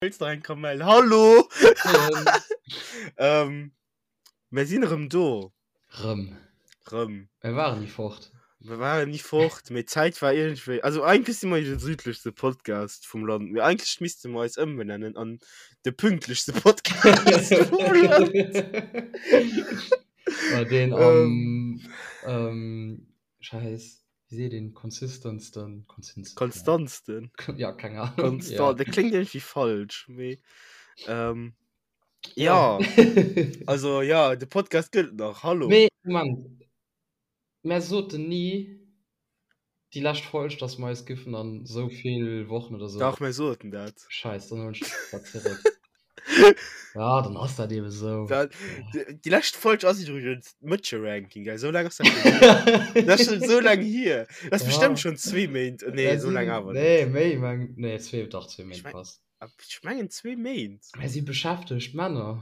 Wëlls nach eng Kamell? Hallo! ähm, mir sinn erëm do. Rëm. Rëm. Mir waren ni fort. Mir waren ni fort, mee d'Zäit war iergendwéi. Also eigentlech si mer jo de südlechste Podcast vum Land, mee eigentlech misste mer eis ëmbenennen an de pünktlechste Podcast vum Land. Bei deen am, ähm, Scheiss, wéi seet een, consistentsten, consistentsten? Konstantsten. Ja, keng Ahnung. Konstant, ja. Dat kléngt irgendwie falsch, mee ähm, ja. Also ja, de Podcast gëtt nach, hallo. Mee, Moment, mär soten ni déi lescht Folg, dass mer eis giffen an esou vill Wochen oder sou. Dach, mär soten dat. Scheiss, dann huelen ech dat zeréck. Ja, dann ass dat eben esou. Dat, déi, déi lescht Folg ass iwwregens d'Mëtsche-Ranking, gell? Sou laang ass dat schon hier. Dat ass schon sou laang hier. Dat ass Ja. bestimmt schon zwee Méint. Nee, Dat sou laang sinn, awer net. nee, méi, meng, nee, zwee, dach, zwee Ech Méint meng, passt. ech mengen zwee Méint. Mir si beschäftegt Männer.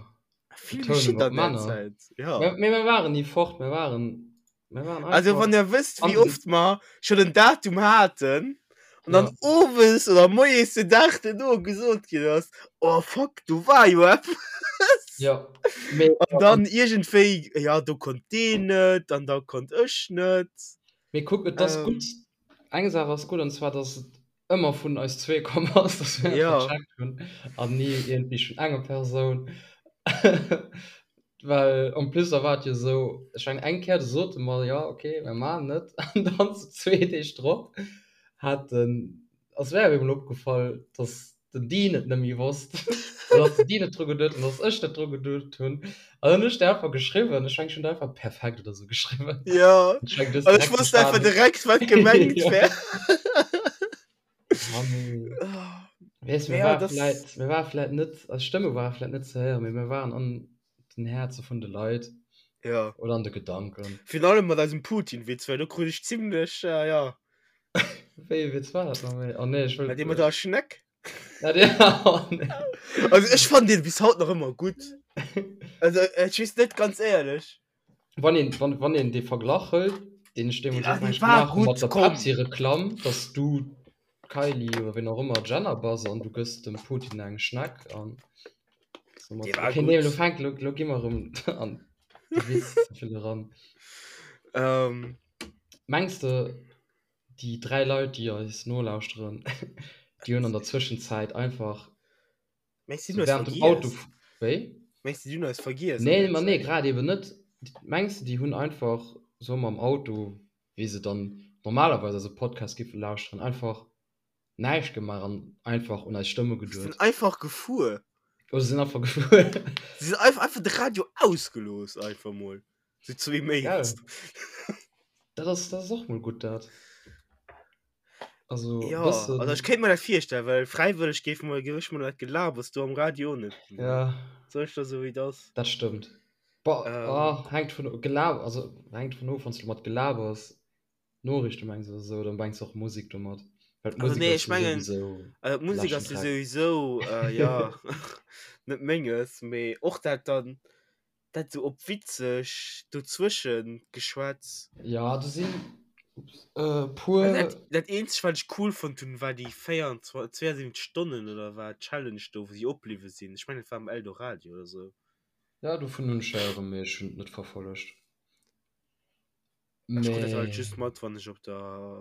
Vill Betounung geschitt op an der Männer. Zäit, ja. Mä, mee mir waren ni fort, mir waren, mir waren Also einfach wann der wësst, an wéi den, oft mer schon en Datum haten an dann ja. owes oder moies den Dag duerno gesot ginn ass, oh fuck, do war jo eppes. Ja, mee, An dann iergendwéi, ja do konnt deen net an da konnt ech net. mee kuck, et ass Ähm, gutt, eng Saach ass gutt, an zwar, dass et ëmmer vun eis zwee komm ass, dass mir dat ja. vercheckt hunn an ni iergendwéi vun enger Persoun. Well en plus da war et jo esou, ech mengen eng Kéier do sote mer, jo okay, mir maachen et an dann sou zwee Deeg drop hat den, ass mär op eemol opgefall, dass den Dean et net méi wosst oder dass den Dean net dru geduet huet an dass ech net dru geduet hunn. An dann hunn ech der einfach geschriwwen, ech mengen ech hunn der einfach perfekt oder sou geschriwwen. Ja, Ech mengen du hues an ech direkt wosst einfach verstanen. direkt, wat gemengt Ja. wär. Ah, nee. Weess, mir Ja, war das. vläit, mir war vläit net, eis Stëmme ware vläit net ze héieren, mee mir waren an den Häerze vun de Leit Ja. oder an de Gedanken. Virun allem mat eisem Putin-Witz, well do krut ech zimmlech, äh, ja. Wéi ee Witz war dat nach méi? Oh nee, ech wëll. Mä dee mat der Schneck. Ja, dee, oh nee. Also ech fannen deen bis haut nach ëmmer gutt. Also ech weess net, ganz éierlech. Wann een, wann, wann een dee Verglach hëlt, deen ech deemools Ah, och dee mengt war gemaach hu gutt, mat der komm. Pepsi-Reklamm, dass du Kylie oder ween och ëmmer Jenner bass an du gëss dem Putin eng Schneck an Dee soumat. war Okay, nee, elo gutt. fänkt, elo, elo gi mer erëm an de Witz ze vill eran. Ähm. Mengs de, déi 3 Leit, déi eis nolauschteren, déi hunn an der Zwëschenzäit einfach Mengs du, so déi hunn eis während dem Auto vergiess? Wéi? Mengs du, déi hunn eis vergiess an Nee, der ma nee, Zäit? grad eben net. Mengs du, déi hunn einfach so mam Auto, wéi se dann normalerweis eise Podcast giffe lauschteren, einfach näischt gemaach an einfach un eis Stëmme Si sinn geduet? einfach gefuer. Oder se sinn einfach gefuer. Si sinn einfach, einfach de Radio ausgelooss, einfach mol. Sou zwee Gell? Méint. Dat ass, dat ass och mol gutt, dat. Also, e Ja, also bëssen. ech kéint mer dat virstellen, well fräiwëlleg géif mer, géif ech mer dat Gelabers do am Radio net ginn. Ja. Soll ech der soe wéi et ass? Dat stëmmt. Boah, Ähm. ah, hänkt vun Gelab, also hänkt vun of, wann s du mat Gelabers Noriichte mengs oder sou, dann mengs du och Musek domat. Well Also d'Musek nee, ass ech jo mengen, souwisou also d'Musek leschten ass jo Dreck. souwisou, äh, ja, net menges, mee och dat dann, dat sou op witzeg dozwëschen geschwätz. Ja, do sinn e Also puer. dat, dat eenzegt wat ech cool fonnt hunn, war déi 24, 72 Stonnen oder wat Challenge do, wou si opbliwwe sinn. Ech mengen et war am Eldoradio oder sou. Ja, dovun hunn ech héieren, mee ech hunn et net verfollegt. Ech krut dat halt Mee. just mat, wann ech op der,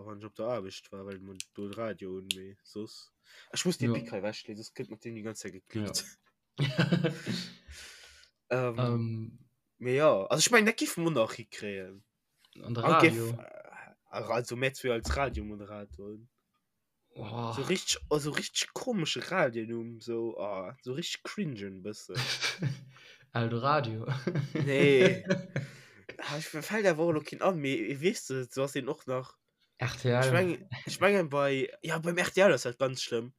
wann ech op der Aarbecht war, well mer do de Radio hunn, mee soss. Ech muss dee Ja. Pic hei ewechleeën, soss gëtt mat deem déi ganz Zäit Ja. geklickt. Ähm, Ähm. mee jo, also ech mengen, dat géife mer nach hikréien. An de An géif, Radio. also mär zwee als Radiomoderatoren. Oh. So richtig, also richtig komesche Radionumm, so, oh, so richtig cringen bëssen. Eldoradio. Nee. Ah, ich, mir fällt awer och elo keen an, mee weess de, so ass deen och nach. RTL. Ech mengen, ech mengen bei, ja beim RTL ass dat ganz schlëmm.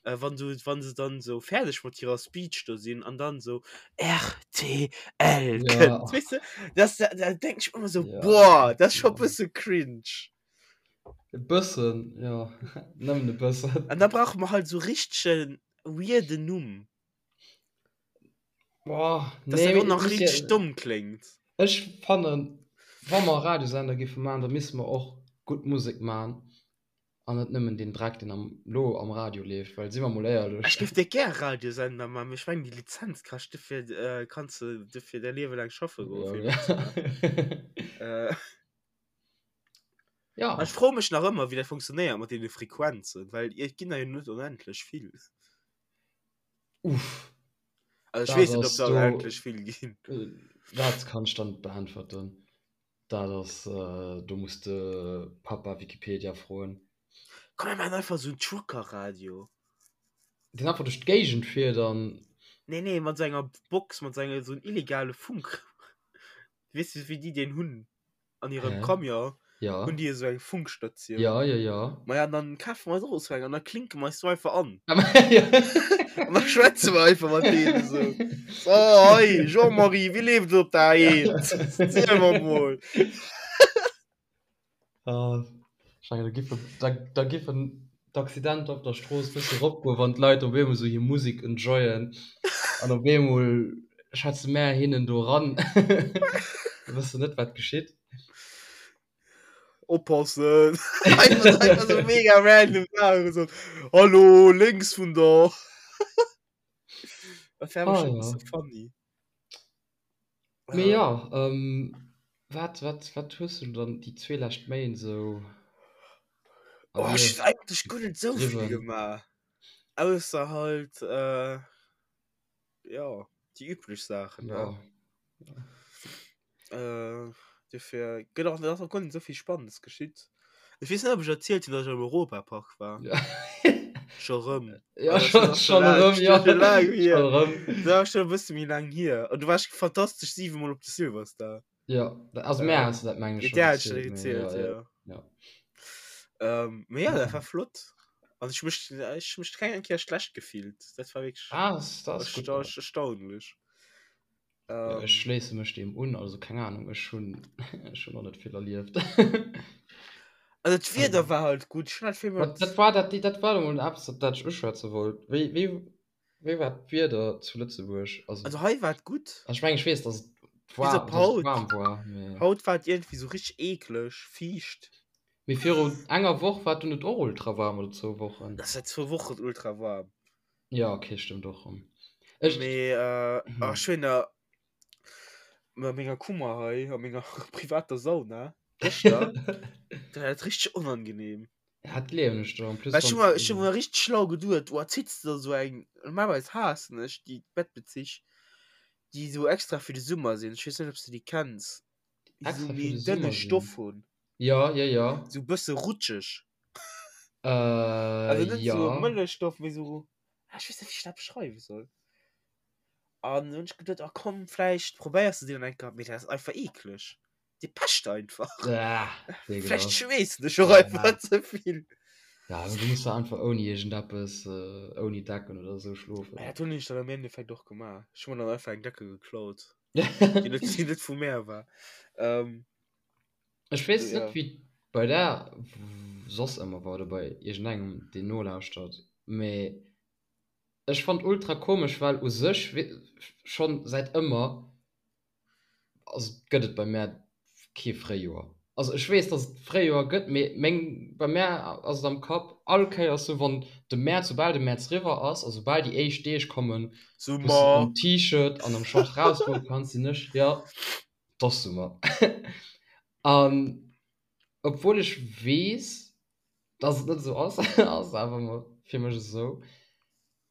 Äh, wann du, wann se dann so fäerdeg mat hirer Speech do sinn an dann so RTL Ja. kënnt, weess de, das, da, da denk ich mir ëmmer so, Ja, boah, das ist scho ja. bësse cringe. E bëssen, jo. Nëmmen e bëssen. An da brauche mer halt sou richtegen weirden Numm. Boah, Dass nee, dat mee och et nach muss richteg ja. domm kléngt. Ech fannen, wa mer e Radiosender géife maachen, da misste mer och gutt Musek maachen. An net nëmmen deen Dreck, deen am, lo am Radio leeft, well si mer mol éierlech. Ech géif dir gär Radiosender man, mee ech mengen déi Lizenz kascht, dofir kanns de dofir däi Liewe laang schaffe goen, fir Ja. dat ze maachen. Äh, Ja. Ech froe mech nach ëmmer, wéi dat funktionéiert mat deene Frequenzen, well et ginn der jo net onendlech vill. Uff. Also ech Dat weess net, ob ass der do, onendlech vill ginn. dat kann ech der net beäntwerten. Dat ass, do muss de Papa Wikipedia froen. Komm mir maachen einfach esou en Trucker-Radio. Deen einfach duerch d'Géigend fiert an. Nee, nee, mat esou enger Box, mat esou enger, esou en illegale Funk. Weess de wéi déi deen hunn? An hirem Hä? Camion Ja. hunn déi esou eng Funkstatioun. Ja, ja, ja. Maja, an dann kafe mer eis och esou eng an da klinke mer eis do einfach an. Ja. An da schwätze mer einfach mat deenen esou. So, hei, Jean-Marie, wéi leeft et op der A1? Ziel mer mol. Ah, ech mengen, da giffen, da, da giffen d'Accidenter op der Strooss e bësse eropgoen, wann d'Leit op eemol esou hir Musek enjoyen an op eemol schwätze mär hinnen do eran. Da wëss de net, wat geschitt. Oppassen! Einfach, einfach so mega random Sachen. So, Hallo, lénks vun der. Dat wär Ah, schon ja. so funny. Mee ja, ähm, wat, wat, wat hues du dann déi zwee lescht Méint esou Oh, ech erlieft, hunn eigentlech guer net esou vill gedriwwen? gemaach. Ausser halt, äh, ja, déi üblech Saachen, ne? Ja. Äh, dofir gëtt och, ass och guer net esou vill Spannendes geschitt. Ech weess net, ob ech erzielt hunn, datt ech am Europapark war. Ja. Scho rëm. Ja, Also, schon, das ass schon schon laang, erëm, ja. schon laang hier. Schon erëm. Dat ass schon e bësse méi laang hier. An du warst fantastesch 7 Mol op de Silverstar. Ja, also Äh, mär has du dat meng ech Ja, schon der hat schon erzielt, mee erzielt, ja, ja, ja. ja. Ähm, mee ja, dat war flott. Also ech mech, ech mech keng eng Kéier schlecht gefillt. Dat war wierklech Ah, das, das ist gut. ersta erstaunlech. Ja, ech Ähm, schléisse mech deem un, also keng Ahnung, ech hunn ech hunn och net vill erlieft. also d'Wieder Also, war halt gutt. Ech hunn halt vill wat, mat dat war dat, dat war emol eppes, op dat ech uschwätze wollt. Wéi, wéi, wéi war d'Wieder zu Lëtzebuerg? Also, Also hei war et gutt. also ech mengen, ech weess, dass et Bis war, op dass et haut. waarm war, mee. Haut war et iergendwéi sou richteg eekleg, fiicht. Mee viru enger Woch war et dunn net och ultra waarm oder zwou Wochen? Dat ass säit zwou Wochen ultra waarm. Ja, okay, stëmmt och rëm. Ech, Mee äh, hm. ach, ech hunn da mat menger Kummer hei a menger privater Sauna gëschter, dat war et richteg onangenehm. Ja, dat gleewen ech der. En plus Well ech hu wann mer, ech hu mer richteg schlau geduet, oh, zitts de der sou eng, normalerweis haassen ech déi Bettbezich, déi sou extra fir de Summer sinn, ech weess net, ob s de déi kenns, déi sou extra fir méi de en dënne Summer sinn. Stoff hunn, Ja, ja, ja. sou bësse rutscheg. Äh, Also net sou ja. Mëllechstoff, mee sou, ah, ech weess net, wéi ech dat beschreiwe soll. An hunn ech geduet, ah komm, vläicht probéiers de déi dann eng Kéier, mee dat ass einfach eekleg. Déi pecht einfach. Ah, Vläicht ekelhaft. schweessen ech och Ja. einfach ze vill. Ja, also du muss da einfach ouni iergendeppes, äh, ouni Decken oder sou schlofen. Ja, dat hunn ech dann am Endeffekt och gemaach. Ech hu mer dann einfach eng Decke geklaut, déi net, déi net vu mär war. Ähm, Ech weess net, ja. wéi et bei der soss ëmmer war oder bei iergendengem, deen nolauschtert, mee ech fannt ultra komesch, well u sech schonn säit ëmmer, also gëtt et bei mär kee Fréijoer. Also ech weess, dass et Fréijoer gëtt, mee meng, bei mär ass et am Kapp all Kéiers sou, wann de Mäerz, soubal de Mäerz riwwer ass a soubal déi éischt Deeg kommen, wou s de Summer! am T-Shirt an am Short rausgoe kanns, sinn ech, jo, 't ass Summer. An obwuel ech weess, dass et net esou ass, ass et awer ëmmer fir mech esou.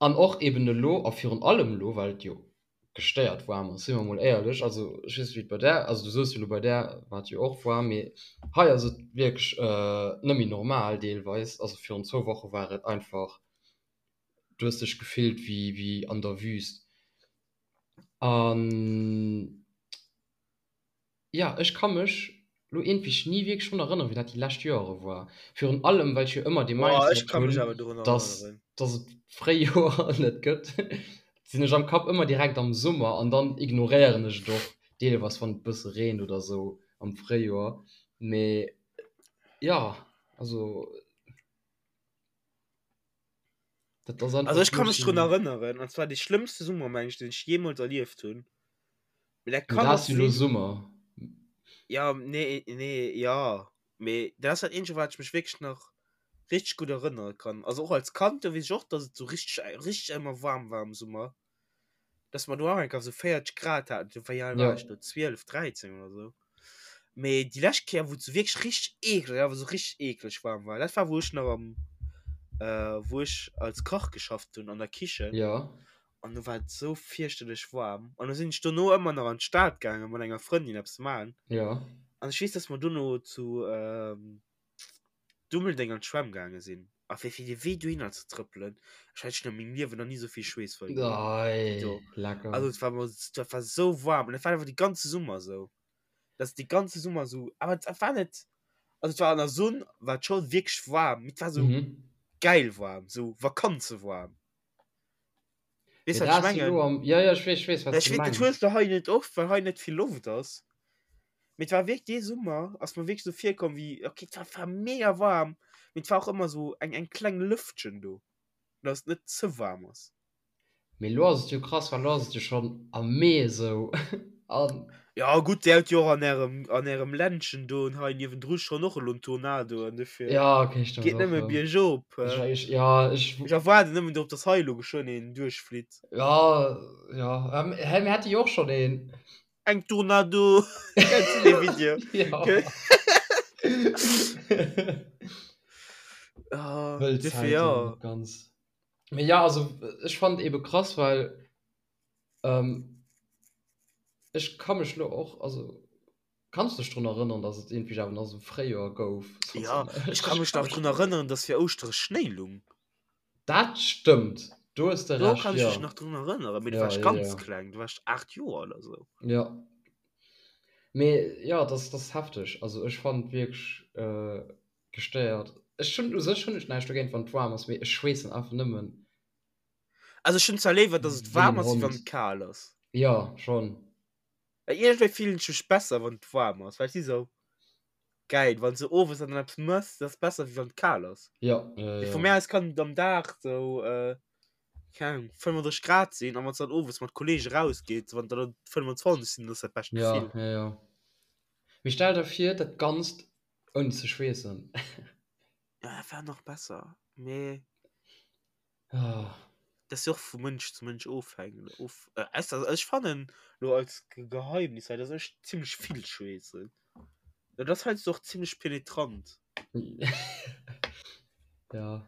An och eben elo, a virun allem elo, well et jo gestéiert waarm ass, si mer mol éierlech, also ech weess net wéi et bei där, also du soos jo elo bei där war et jo och waarm, mee hei ass et wierklech net méi normal deelweis, also virun zwou Woche war et einfach, du hues dech gefillt wéi wéi an der Wüst. An jo, ech ka mech lo iergendwéi ni wierklech drun erënneren, wéi dat déi lescht Joere war. Virun allem, well ech jo ëmmer dee Boah, ech Mindset ka mech hunn, awer dorun dass, erënneren. dass et d'Fréijoer net gëtt, sinn ech am Kapp ëmmer direkt am Summer an dann ignoréieren ech et och deelweis, wann et e bësse reent oder sou am Fréijoer. Mee jo, also. Dat ass Also einfach ech fir ka mech mech drun sou. erënneren, an zwar dee schlëmmste Summer, meng ech, deen ech jeemools erlieft hunn. Mee dat Mee kann dat och ass jo elo sinn. Summer. Ja, nee, nee, ja. Mee dat ass dat eenzege, wat ech mech wierklech nach. Richteg gutt erënnere kann. Also och als Kand, do weess ech och, dass et sou richteg, richteg ëmmer waarm war am Summer. Dass mer do auch eng Kéier sou 40 Grad haten. Do wéi al war ech do? 12, 13 oder sou. Mee déi lescht Kéier, wou et sou wierklech richteg eekleg, awer sou richteg eekleg waarm war, dat war wou ech nach am, wou ech als Kach geschafft hunn an der Kichen. Jo. An do war et sou fierchterlech waarm. An du sinn ech dono ëmmer nach an d'Stad gaangen mat enger Frëndin eppes man. Jo. An ech weess, dass mer dono zu Dummeldeng an d'Schwämm gaange sinn. A fir fir de Wee dohinner ze trëppelen, ech hat schon a mengem Liewen nach ni sou vill Schweess verluer wéi Ei, do. lecker. Also et war mer, dat war sou waarm. An dat war einfach de ganze Summer sou. Dass de ganze Summer sou, awer et war net, also et war an der Sonn war et scho wierklech waarm, mee et war sou Mhm. geil waarm, sou vakanzewaarm. Weess Mee wat ech dat ass jo mengen? elo am, ja, ja, ech weess, ech weess, wat Ech s du weess, dat mengs. hues de hei net oft, well hei net vill Loft ass. Mee et war wierklech dee Summer ass mer wierklech sou virkomm wéi, okay, et war, war mega waarm, mee et war och ëmmer sou eng, eng kleng Lëftchen do, dass et net ze waarm ass. Mee elo ass et jo krass, well elo ass et jo schonn am Mee esou an. Ja gutt, dir hutt jo och an ärem, an ärem Ländchen do hei niewendru schonn och elo en Tornado an dofir Ja, okay, stimmt geet och, nëmme ja. biergop. Ech, ech, ja, ech. Ech erwaarden nëmmen drop, dass hei elo geschwënn een duerchflitt. Ja, ja, hä, mir hate jo och schonn een. Eng Tornado! Kennst du dee Video? Ja. Ah, Wëll dofir Zäiten, ja. net ganz. Mee ja, also ech fand ebe krass, well ähm, ech ka mech lo och, also kanns du dech drun erënnern, dass et iergendwéi awer nach esou Fréijoer gouf? Ja, ech ka mech nach drun erënnern, dass fir Ouschtere Schnéi lung. Dat stëmmt, do hues de Do Recht, kann ech ja. mech nach drun erënneren, mee du Ja, waars ja, ganz ja. kleng, du waars 8 Joer oder sou. Ja. Mee ja, das, das ass hefteg. Also ech fand wierklech äh, gestéiert. Ech hunn u sech hunn ech näischt dogéint wann et waarm ass, mee ech schweessen einfach nëmmen. Also ech hunn zwar léiwer dass et Wéi waarm en ass wéi wann Hond. et kal ass. Jo, schonn. Well iergendwéi fillen ech mech besser wann et waarm ass, well ech si sou geil wann s de owes dann eppes mëss, dat ass besser wéi wann et kal ass. Jo, jo, Mee jo. vu mär aus kann et am Dag sou keng Ahnung 35 Grad sinn an wann s dann owes mat Kollege rausgeet, wann dann 25 sinn, dat ass dat bescht Ja, Gefill. jo, jo. Mee stell der vir dat Ganzt Ouni ze schweessen. Ja, dat war nach besser. Mee Ah. dat ass jo och vu Mënsch zu Mënsch ofhängeg. Of, äh, ausser, also ech fannen lo als Ge- Geheimnis hei, dass ech zimmlech vill schweessen. Dat ass heiansdo och zimmlech penetrant. Ja.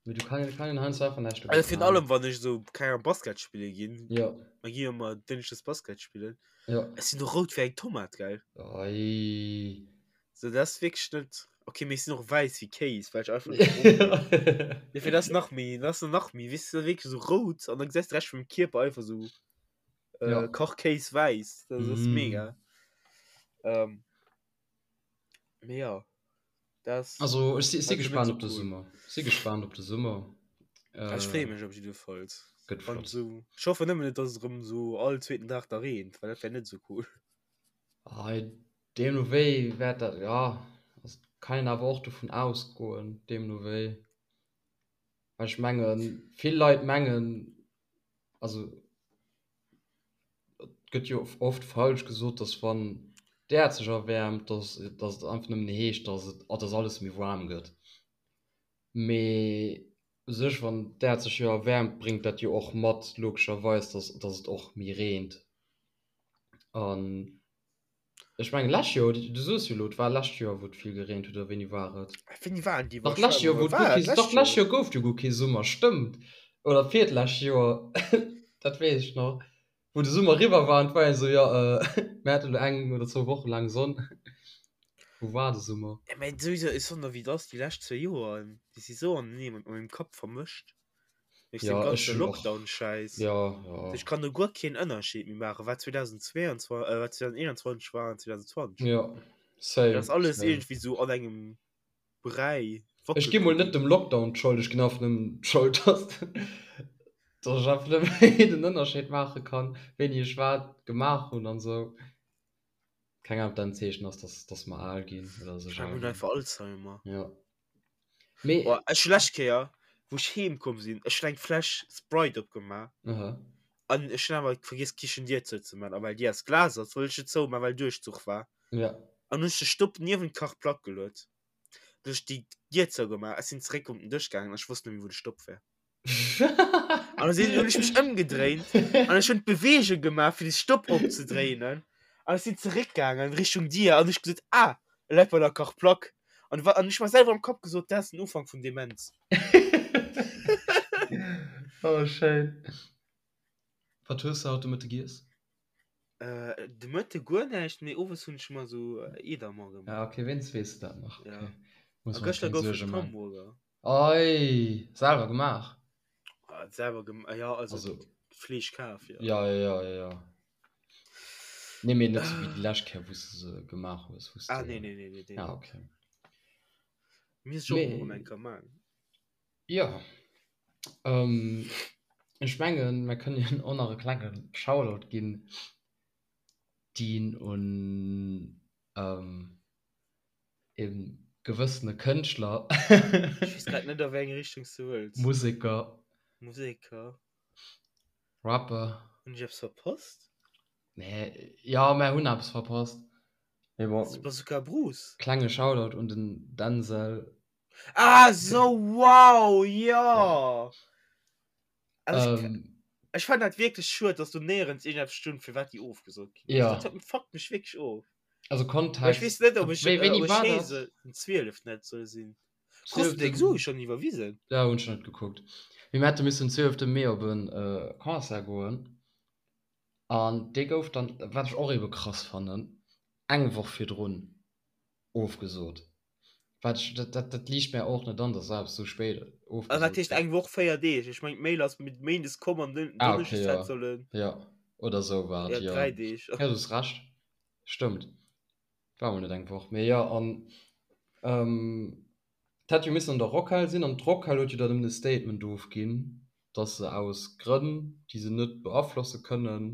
Mee du kann, kann een heiansdo einfach näischt Also dogéint virun maachen. allem wann ech sou, keng Ahnung, Basket spille ginn. Ja. Mer gi jo ëmmer dënschdes Basket spillen. Ja. Ech sinn och rout wéi eng Tomat, gell? Ei. So, dat ass wierklech net. Okay, mee ech sinn och wäiss wéi Kéis, well ech einfach net brong ginn. Dofir, dat ass nach méi, dat ass nach méi, weess du, wierklech sou rout an da gesäis de Rescht vum Kierper einfach sou äh, Ja. Kachkéis wäiss. Dat ass Mm. mega. Ähm, mee ja. Das Also ech si, si also net gespannt so op de cool. Summer. Si gespannt op de Summer. Äh, ech freeë Äh, mech op jiddefalls. gëtt Wann flott. so, ech hoffe nëmmen net, dass et erëm sou all zweeten Dag da reent, well dat wär net sou cool. Ei, deemno wéi wäert dat, ja, also kann een awer och dovun ausgoen, deemno wéi. Well ech mengen, vill Leit mengen, also et gëtt jo oft falsch gesot, dass wann d'Äerd sech erwäermt, dass, dass et einfach nëmmen heescht, dass et, dass alles méi waarm gëtt. Mee u sech, wann d'Äerd sech jo erwäermt, bréngt dat jo och mat logescherweis, dass, dass et och méi reent. An ech mengen lescht Joer, du soos jo elo, et war lescht Joer, wou et vill gereent huet, oder wéini war et? Wéini waren déi Dach lescht Joer, wou et guer War kee, et dach lescht lescht Joer? Joer gouf et jo guer kee Summer, stëmmt. Oder virtlescht Joer, dat weess ech nach, wou de Summer eriwwer war an et war een esou, jo, mir haten elo eng oder zwou Woche laang Sonn. Wou war de Summer? Ja, mä souwisou, ech soen der wéi et ass, déi lescht zwou Joer, déi si sou anenee mat mengem Kapp vermëscht. Duerch den Ja, ech ganze hunn och, Lockdown-Schäiss. ja, ja. Ech kann do guer keen Ënnerscheed méi maachen, wat 2022, äh, wat 2021 war an 2020. Ja, Dat same, ass alles same. iergendwéi sou an engem Bräi Ech gi mol net wackelpudding. dem Lockdown d'Schold, ech ginn einfach nëmmen d'Schold, dass, dass ech einfach net méi den Ënnerscheed maache kann, wéini ech wat gemaach hunn an esou. Keng Ahnung, ob dat en Zeechen ass, dass, dass mer al ginn oder dass Ech ech mengen, al mir hunn ginn. einfach Alzheimer. Ja. Mee. Oh, ech hu lescht Kéier, wou ech heem komm sinn, ech hunn eng Fläsch Sprite opgemaach. Aha. An ech hunn awer vergiess d'Kichendier zouzemaachen. A well déi aus Glas ass, wollt ech net zoumaachen, well Duerchzuch war. Ja. An hunn ech de Stopp niewent d'Kachplack geluet. Duerch déi Dier zougemaach, ech sinn zeréck op den Dësch gaangen an ech wosst net méi wou de Stopp war. An da sinn hunn ech mech ëmgedréint an ech hunn d'Beweegung gemaach fir de Stopp opzedréinen an ech sinn zeréckgaangen Richtung Dier an ech gesot, ah, e läit bei der Kachplack. An wa an ech mer selwer am Kapp gesot, dat ass den Ufank vun Demenz. Oh schéin. Wat hues de haut de Mëtte giess? Äh, de Mëtte guer näischt, mee owes hunn ech mer sou Edamer gemaach. Ah, okay, wéinst weess de dat nach. Ja. Okay. Muss A mer gëschter keng gouf et Suerge man. Hamburger. Ei, selwer gemaach? Ah, selwer gem ja, also, Also, Fleesch kaf, ja. ja, ja, ja, ja, ja. Nee, mee net sou wéi déi lescht Kéier, wou s de se gemaach hues, wou s Ah, nee, de. nee, nee, nee, nee, Ah, nee. okay. Misst ech och mol erëm eng Mee, Kéier man. jo. Ähm, ech mengen, mer kënnen och nach e klenge Shoutout ginn, deen un ähm, e gewëssene Kënschtler. Ech weess grad net, a wéi eng Richtung s du wëlls. Museker. Museker. Rapper. Hunn ech eppes verpasst? Nee, jo, mer hunn eppes verpasst. Mee bon. Bazooka Bruce. Klenge Shoutout un den Denzel. Ah sou, wow, jo! Also ech, Ähm, ech fannen dat wierklech schued, dass do néierens iergendeppes stund, firwat déi ofgesot ginn ass. ja. Dat huet, fuckt mech wierklech of. Also Well ech weess Kontext, net, ob ech, wéi, äh, wéini ob ech war hee dat? se den 12 net soll sinn. Krus du deng 12. Sue schonn iwwerwisen? Ja, hunn ech net gekuckt. Mee mir hätte missen 12. Mee op e Concert goen an dee gouf dann, wat ech och ebe krass fannen, eng Woch virdrun ofgesot. Wat ech, dat, dat, dat liicht mär och net an, dass eppes sou spéit Also wat ofgesot heescht gëtt. eng Woch, 4 Deeg? Ech mengen d'Mail ass mit Méindes komm an den Ah, okay, Donneschdes hätt ja. sollen. Ja, oder sou war Ja, et, jo. 3 Deeg. Ja, du hues Recht. Stëmmt. War mol net eng Woch, mee jo. An ähm, et hätt jo missen an der Rockhal sinn, an d'Rockhal huet jo dann nëmmen e Statement ofginn, dass se aus Grënn, déi se net beaflosse kënnen,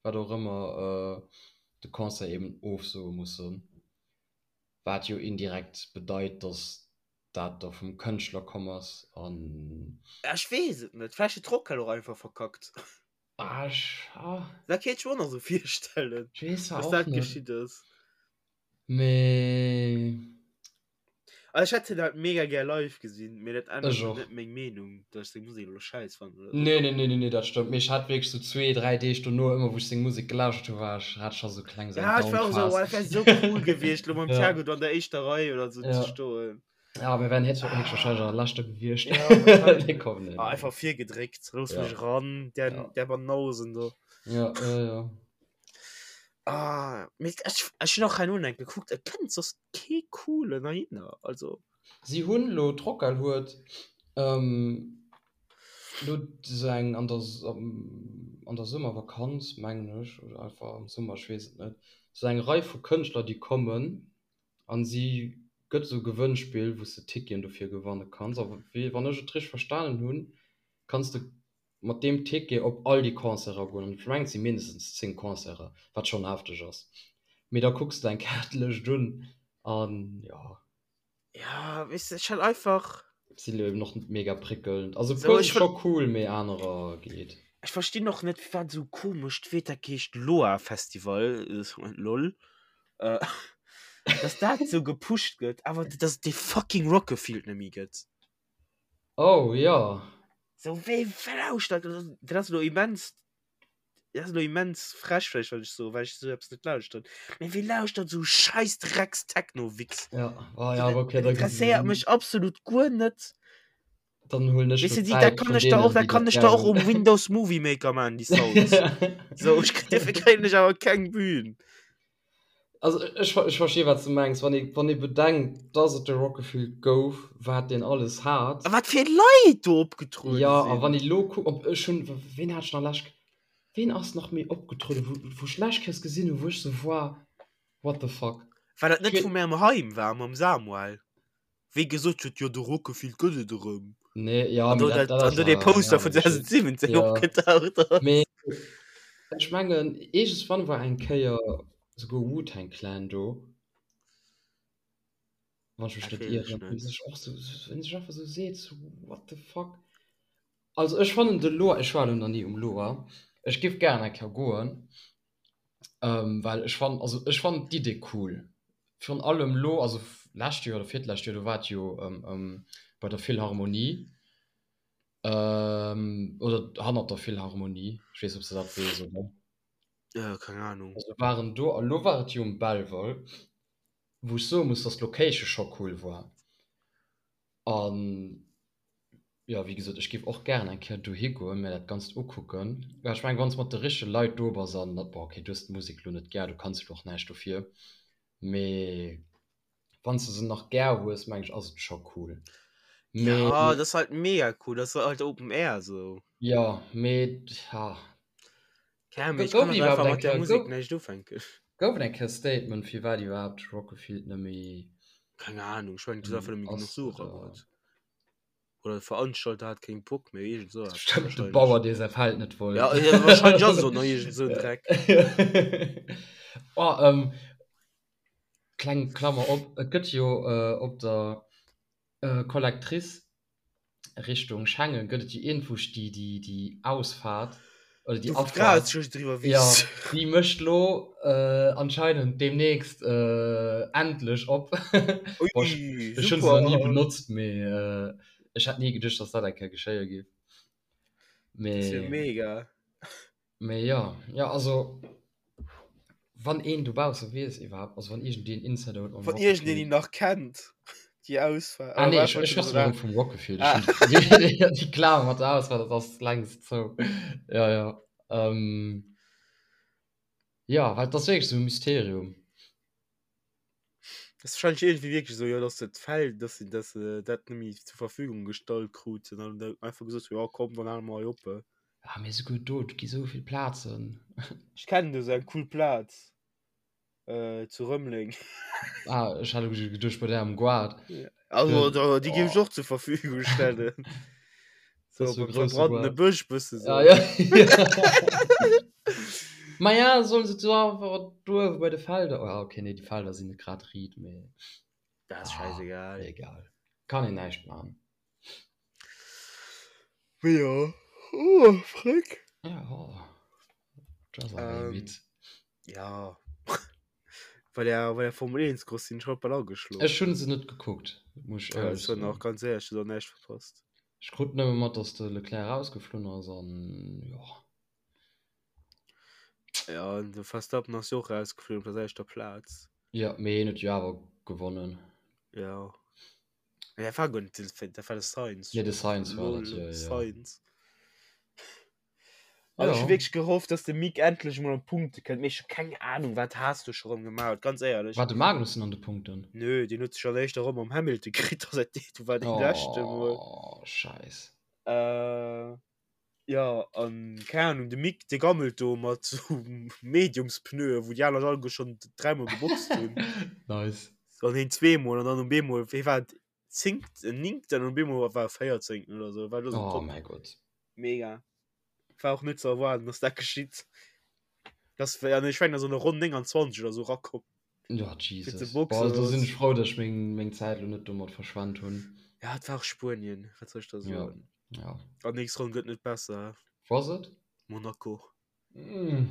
wat och ëmmer, de Concert eben ofsoe mussen. Wat jo indirekt bedeit, dass dat da vum Kënschtler komm ass an. Ech weess et net, vläicht huet d'Rockhal och einfach verkackt. Ah, ech, ah. Dat kéint ech mer och nach esou virstellen, Ech weess dass och dat net. geschitt ass. Mee. Also ech hätt hien halt mega gär live gesinn, mee dat ännert Ech och. net meng Meenung, dass ech seng Musek elo schäiss fannen oder sou. Nee, nee, nee, nee, nee, dat stëmmt. Mee ech hat wierklech sou zwee, dräi Deeg dono, ëmmer wou ech seng Musek gelauschtert hu, war ech, hat ech scho sou kleng sou eng Ja, ech war och esou, Down-Phas. oh, dat wär sou cool gewiescht, elo mam Ja. Thiago do an der éischter Rei oder sou ze Ja. stoen. Ja, mir wären héchstwahrscheinlech an der leschter gewiescht. Ja, wahrscheinlech. Nee, komm, nee, Ah, nee. einfach virgedréckt, looss Ja. mech eran, där, Ja. där Banausen do. Ja, ja, ja. Ah, mee ech, ech hunn och herno eng gekuckt, et kënnt soss kee coolen heihinner, also. Si hunn lo, d'Rockhal huet lo sou eng an der an der Summervakanz mengen ech, oder einfach am Summer, ech weess et net, sou eng Rei vu Kënschtler déi kommen an si gëtt sou e Gewënnspill wou s de Ticketen dofir gewanne kanns a wéi wann ech et richteg verstanen hunn, kanns de mat deem Ticket op all déi Concerten goen, an ech mengen et si mindestens 10 Concerten, wat schonn hefteg ass, mee da kucks de eng Kaartelëscht un an jo. Ja, weess de, ech hat einfach. Sinn elo eben och net mega prickelnd, also e puer si scho cool, mee anerer geet. Ech verstinn och net firwat esou komescht Wierder heescht Loa Festival, lol, dass dat esou gepusht gëtt, awer dass et dee fucking Rock-a-Field net méi gëtt. Oh jo. Sou wéi lauschtert dat ass elo immens dat ass elo immens frech vläicht wat ech soen, well ech esou eppes net lauschteren, mee wie lauschtert esou scheiss Drecks Techno-Wichs? Ja, oh ja, Dat okay, da interesséiert mech absolut guer net. Dann huelen ech Weess lo de, déi dat Zäit kann vun ech der och deenen, dat déi kann dat ech der och gär um Windows Movie Maker man déi Sounds. Sou ech dofir kréien ech awer keng Bühn. Also ech, ech versti wat s de mengs, wann ee, wann ee bedenkt, dass et de Rock-a-Field gouf, wat deen alles hat. A wat fir Leit do opgetruede Ja, a sinn. wann ee lo kuckt, ob ech hunn, ween hat ech nach lescht, ween ass nach méi opgetrueden, wou, wou ech lescht Kéiers gesinn hunn, wou ech sou war, what the fuck. War dat net Ech vu märem Heim war, mam Samuel? Wéi gesot huet, jo de Rock-a-Field gëtt et erëm. Nee, ja, An do mee dat, dat, dat an ass do dee awer eng Poster aner vun Geschicht. 2017 Ja, opgetaucht ass. mee ech mengen, iergendswann war eng Kéier souguer Wu-Tang Clan do, wann ech mech Dat net weess ech ieren, wou net. sech och sou, wou een sech einfach sou seet, sou what the fuck. Also ech fannen de Loa, ech war elo nach ni um Loa, ech giff gären eng Kéier goen, Ähm, well ech fannen, also ech fannen d'Idee cool. Virun allem lo, also. Lescht Joer oder virtlescht Joer, do war et jo bei der Philharmonie oder hannert der Philharmonie, ech weess net, ob s de dat weess, oder? Keng Ahnung. Also waren do, a lo war et jo um Belval, wou ech soe muss, dass d'Location scho cool war. An jo, wéi gesot, ech géif och gären eng Kéier dohi goen, mir dat Ganzt ukucken. Well ech mengen, wann s de mat de richtege Leit do bass an, bon, okay, du hues d'Musek lo net gär, du kanns jo lo och näischt dofir, mee wann s de se nach gär hues, meng ech, ass et scho cool. Mee. Ja, dat ass halt mega cool, dat ass halt Open Air sou. Jo, mee ja. Keng Ahnung, mee ech kann halt einfach mat där Musek näischt ufänken. Gouf et eng Kéier Statement, firwat iwwerhaapt Rock-a-Field net méi. Keng Ahnung, ech mengen, du hues einfach net méi genuch Sue erageholl. Oder de Veranstalter hat keng Bock méi, iergend sou eppes. Stimmt, de Bauer, dee säi Feld net wollt. Ja, ja, wahrscheinlech ass et och nach iergend sou en Dreck. Oh, ähm, kleng Klammer op, et gëtt jo op der Collectrice Richtung Schengen gëtt et jo iergendwou déi, déi, déi Ausfahrt oder déi Abfahrt. Ja, déi mécht lo anscheinend deemnächst endlech op. Ui, ech hunn se nach ni benotzt, mee ech hätt ni geduecht, dass dat eng Kéier geschéie géif. Mee. Dat ass jo mega. Mee jo, jo also wann een dobausse weess iwwerhaapt, also wann iergendeen Insider huet mam Wann iergendeen déi nach kennt, déi Ausfahrt. Ah nee, ech ech schwätzen erëm vum Rock-Gefill. Ech hunn déi Klammer mat der Ausfahrt, dat ass längst zou. Jo, jo. Jo, well et ass wierklech esou e Mysterium. Das ist wahrscheinlich irgendwie wirklich so, ja, dass das Feld, dass sie das, äh, dat net méi zur Verfügung gestallt kruten an da einfach gesot hun, ja komm, dann hale mer hei op. Ah, mee souguer do, et gi sou vill Plazen. Ech kennen do sou eng cool Plaz, äh, zu Rëmeleng. Ah, ech hat elo geduecht bei där am Goart. Also, da, déi géif ech och zur Verfügung stellen. So, Das ist so beim große verbrannene Goart. Bësch bësse so. Ah, ja. Ma ja, sollen se do einfach do uewe bei de Felder. Oh, ja, okay, nee, déi Felder sinn net grad riit, mee Dat ass ah, scheißegal. egal. Kann een näischt maachen. Mee ja. Oh, Frick. Ja, oh. Du ass awer Ähm, midd. Ja. Bei der, bei der Formel 1 Cross sinn ech haut bal ageschlof. Ech hunn se net gekuckt, muss ech Ja, éierlech ech soen soen. och ganz éierlech, du hues och näischt verpasst. Ech krut nëmme mat, dass de Leclerc erausgeflunn ass an jo. Ja, an de Verstappen ass jo och erausgeflunn op der selwechter Plaz. Ja, mee hien huet jo awer gewonnen. Ja. Nee, dat war guer net de, dat war de Sainz. Nee, de Sainz war dat, Lol, jo, jo. Sainz. Also ech hu Ja. wierklech gehofft, dass de Mick endlech emol an d'Punkte kënnt, mee ech hu keng Ahnung, wat Haas do scho rëm gemaach huet, ganz éierlech. War de Magnussen an de Punkten? Nö, deen huet sech an der éischter Ronn mam Hamilton kritt, a säit du war dee leschte mol. Oh, Scheiss. Äh, ja, an keng Ahnung, de Mick, dee gammelt do mat sou Mediumspneue, wou déi aner alleguer schonn dräimol geboxt hunn. Nice. An hien zweemol, an dann um eemol, wéi war et, zéngten, néngten, an um eemol war e véierzéngten oder sou, war do sou Oh top. mäi Gott. Mega. War och net ze erwaarden, dass dat geschitt. Das war, ja, ich mein, so eine Ronn 29 oder so rakomm. Ja, Jesus. Boah, da sinn ech frou, dass ech meng, meng Zäit lo net domat verschwent hunn. Ja, et war och Spuenien, wat soll ech da soen? Ja, ja. An nächst Ronn gëtt net besser. Wou ass et? Monaco. Mm.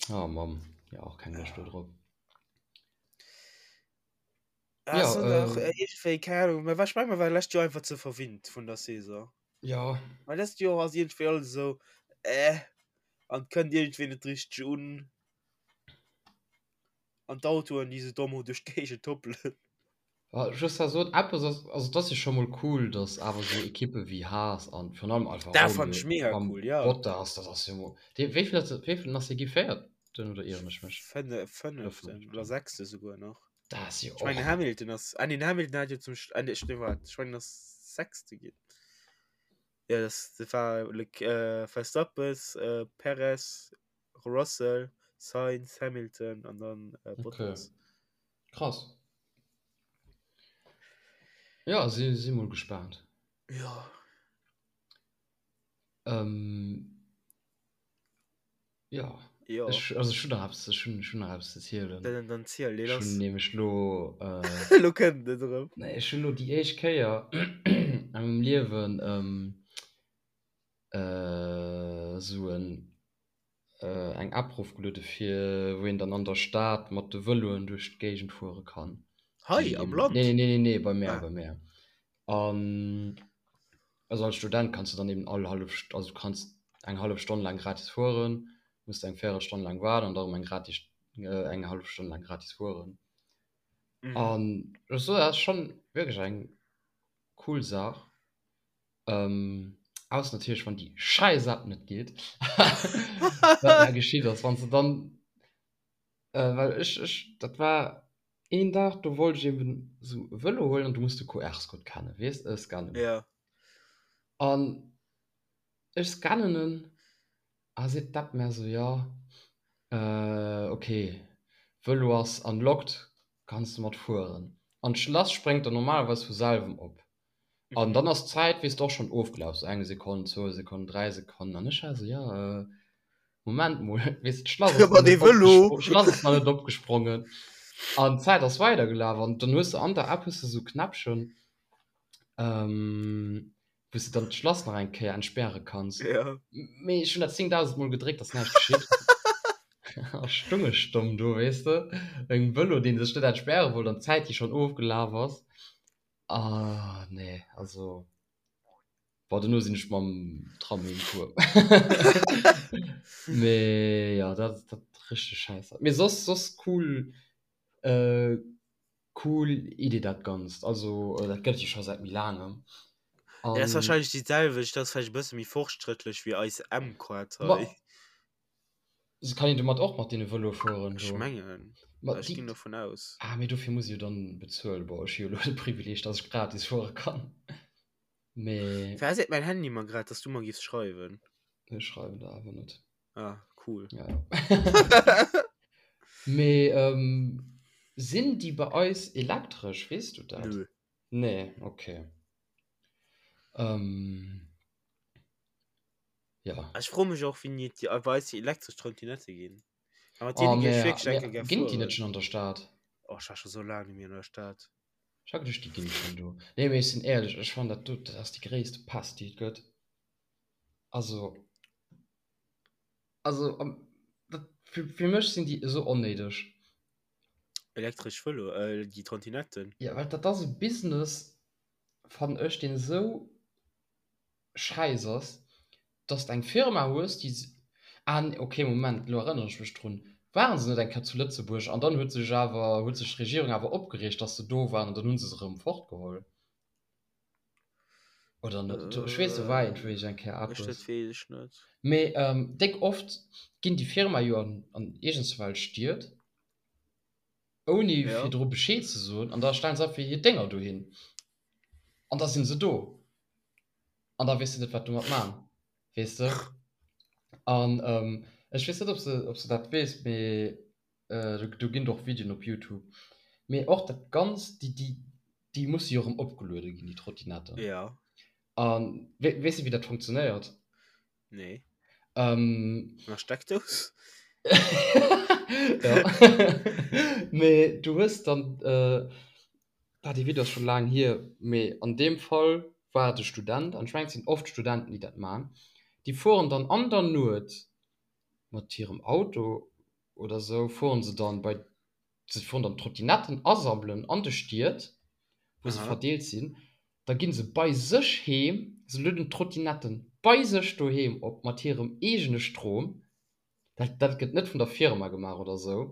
Oh Mann, ja, och keng Loscht do drop. Ja, Ja, so nach, äh, äh, irgendwie, keine Ahnung, mä ech meng, mer war lescht Joer einfach ze verwinnt vun der Saison. Ja. Well dëst Joer ass irgendwie alles esou, äh, an kënnt irgendwie net richteg un. An d'Autoen, déi sou domm duerch d'Géigend hoppelen. Ja, just da sot, eppes ass, also dat ass jo scho mol cool, dass awer sou Ekippe wéi Haas an virun allem Alfa Dat fand Romeo ech mega mam cool, ja. Bottas, dat ass jo mol, dee, wéi vill ass, wéi vill ass dee gi? Véierten oder ieren ech mech? Fënne, Oder fënneften fënneften? oder sechste souguer nach. Dat ass jo Ech mengen och. Hamilton ass, ah nee, den Hamilton hat jo zum, ah nee, nee, wart, ech mengen ass sechste ginn. Ja, das, das war Lec äh, Verstappen, äh, Perez, Russell, Sainz, Hamilton an dann äh, Okay. Bottas. Krass. Ja, si, si mol gespaant. Ja. Ähm, Ja, Jo. ech, also ech hunn nach eppes, ech hunn, ech hunn nach eppes ze zielen. Dann, dann ziel, lee Ech hunn lass. nämlech lo, äh, Lo kënnt et erëm. nee, ech hunn lo déi éischt Kéier a mengem Liewen, ähm, äh, sou en. eng App rofgeluede fir wou een dann an der Stad mat de Vëloen duerch d'Géigend fuere kann. Hei am Land? Nee, nee, nee, nee, bei mär, bei mär. An also als Student kanns du dann eben all hallef, also du kanns eng hallef Stonn laang gratis fueren, muss eng Véierelstonn laang waarden an da erëm eng gratis, eng hallef Stonn laang gratis fueren. Mhm. An ech soen, dat ass schonn wierklech eng cool Saach. Ähm, ausser natierlech, wann déi schäiss App net geet. Wat mer geschitt ass, wann s de dann, äh, well ech, ech, dat war een Dag, do wollt ech eben esou e Vëlo huelen an du muss de QR-Code kennen, weess, äh, scannen. Ja. An ech scannen en a seet d'App mär esou, jo, äh, ok, Vëlo ass unlocked, kanns de mat fueren. An d'Schlass spréngt dann normalerweis vu selwem op. An dann ass d'Zäit, weess de, och schonn ofgelaf, sou eng Sekonn, zwou Sekonnen, dräi Sekonnen. An ech war esou, jo, Moment mol, weess de, d'Schlass ass nach net opgespro-, d'Schlass ass nach net opgesprongen. An d'Zäit ass weidergelaf. An dann hues de an der App hues de sou Knäppchen, wou s de dann d'Schlass nach eng Kéier entspäre kanns. Mee ech hunn dat 10.000 Mol gedréckt, ass näischt geschitt. A stung ech domm do, weess de, mengem Vëlo, dee sech net entspäre wollt an d'Zäit, déi schonn ofgelaf ass. Ah nee, also bon, dono sinn ech mam Tram heem gefuer. Mee ja, dat dat richteg schäiss. Mee soss soss cool äh, cool Idee dat Ganzt. Also dat gëtt et jo scho säit méi laangem. Ja, dat ass wahrscheinlech déi selwecht, dat ass vläicht e bësse méi fortschrëttlech wéi eis M-Card hei. Se kann een domat och mat deene Vëloe fueren do? Ech mengen, Ma ech déi ginn dovun aus. Ah, mee dofir muss ee jo dann bezuelen. Bon, ech hu jo elo de Privileeg, dass ech gratis fuere kann. Mee. Firwat seet mäin Handy mer grad, dass du mer giffs schreiwen? Ech schreiwen der awer net. Ah, cool. Ja, ja. Mee sinn déi bei eis elektresch, weess du dat? Nö. Nee, okay. Ja. Ech froe mech och wéini et déi bei eis déi elektresch Trottinette ginn. A mat Oh, deene géif ech mä, wierklech mä enke gär ginn déi net fueren. schonn an der Stad? Oh, ech war scho sou laang net méi an der Stad. Ech hat geduecht, déi ginn schonn do. Nee, mee ech sinn éierlech, ech fannen dat do, dat ass déi gréisste Pest, déi et gëtt. Also, also am, dat, fir, fir mech sinn déi esou onnéideg. Elektresch Vëlo, äh, déi Trottinetten. Ja, well dat ass e Business, fannen ech, deen esou Schäiss ass, dass de eng Firma hues, déi, ah nee, okay, Moment, elo erënnere ech mech drun, ware se net eng Kéier zu Lëtzebuerg an dann huet sech awer, huet sech d'Regierung awer opgereegt, dass se do waren an dann hu se se erëm fortgeholl? Oder net? Ech weess, do war iergendwéi eng Kéier Ech, eppes. dat weess ech net. Mee déck oft ginn déi Firma jo an, an iergendswelch Stied, ouni Ja. virdru Bescheed ze soen an da stellen se einfach hir Dénger dohin an da sinn se do. An da weess de net, wat domat man, weess de. An ech weess net, ob s de, ob s de dat weess, mee do ginn et och Videoen op Youtube. Mee och dat Ganzt, déi, déi, déi musse jo erëm opgeluede ginn, déi Trottinetten. Ja. A weess de, wéi dat funktionéiert? Nee. Ähm, An der Steckdous? Ja. Mee du hues dann, äh, ah, dee Video ass scho laang hier, mee an deem Fall war et e Student, an ech mengen, et sinn oft Studenten, déi dat man, déi fueren dann an der Nuet mat hirem Auto oder sou, fueren se dann bei, se fueren dann d'Trottinetten asammelen an de Stied, wou se Aha. verdeelt sinn, Da ginn se bei sech heem, se lueden d'Trottinetten bei sech doheem op mat hirem eegene Strom, dat dat gëtt net vun der Firma gemaach oder esou,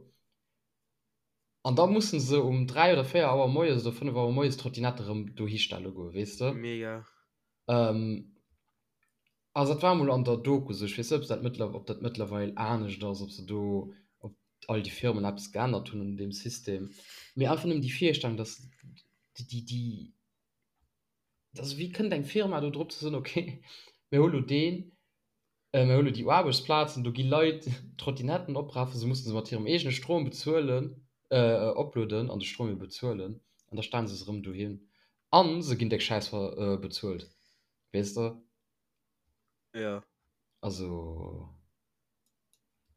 an da mussen se um 3 oder 4 Auer moies oder 5 Auer moies d'Trottinette erëm dohi stelle goen, weess de. Mega. Also dat war emol an der Doku esou, ech weess net, ob se dat mëttler ob dat mëttlerweil anescht ass, ob se do, ob all déi Firmen eppes geännert hunn un deem System, mee einfach nëmmen déi Virstellung, dass déi, déi, déi, also wéi kënnt eng Firma do drop ze soen, okay, mir hu lo deen, mir hu lo déi Aarbechtsplazen, do gi Leit Trottinetten oprafen, se musse se mat hirem eegene Strom bezuelen, oplueden an de Strom jo bezuelen an da stellen se se erëm dohin a se ginn déck Schäiss bezuelt. Weess de? Ja. Also,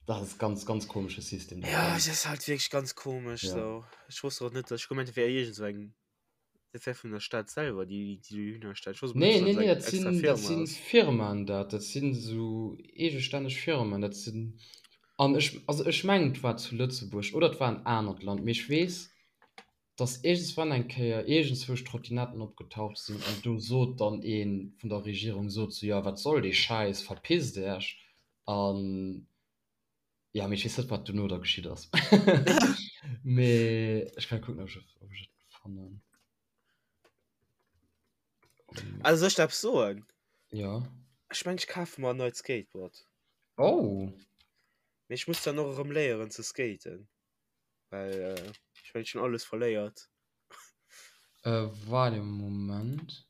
dat ass ganz, ganz komesche System. Dat ja, es ist halt wirklich ganz komisch. Ja. So. Ich wusste auch nicht, dass ich gemeint, wäre irgend so eng. Dat wär vun der Stad selwer, déi déi dohinner stellt. Ech wosst Nee, nee, nee, dat sinn, dat sinn Firmaen dat. Dat sinn esou eegestänneg Firmen. Dat sinn, an ech, also ech mengen et war zu Lëtzebuerg oder et war en anert Land, mee ech weess, dass iergendswann eng Kéier iergendzwousch Trottinetten opgetaucht sinn an do sot dann ee vun der Regierung sot sou, jo wat soll dee Schäiss, verpisst Iech an jo, mee ech weess net wat dono da geschitt ass. Mee ech kann kucken ob ech ob ech et fannen. Also soll ech der eppes soen? Jo. Ech mengen ech kafe mer en neit Skateboard. Oh! Mee ech muss dann och erëm léieren ze skaten. Well äh, ech mengen ech hunn alles verléiert. Äh, waart e Moment.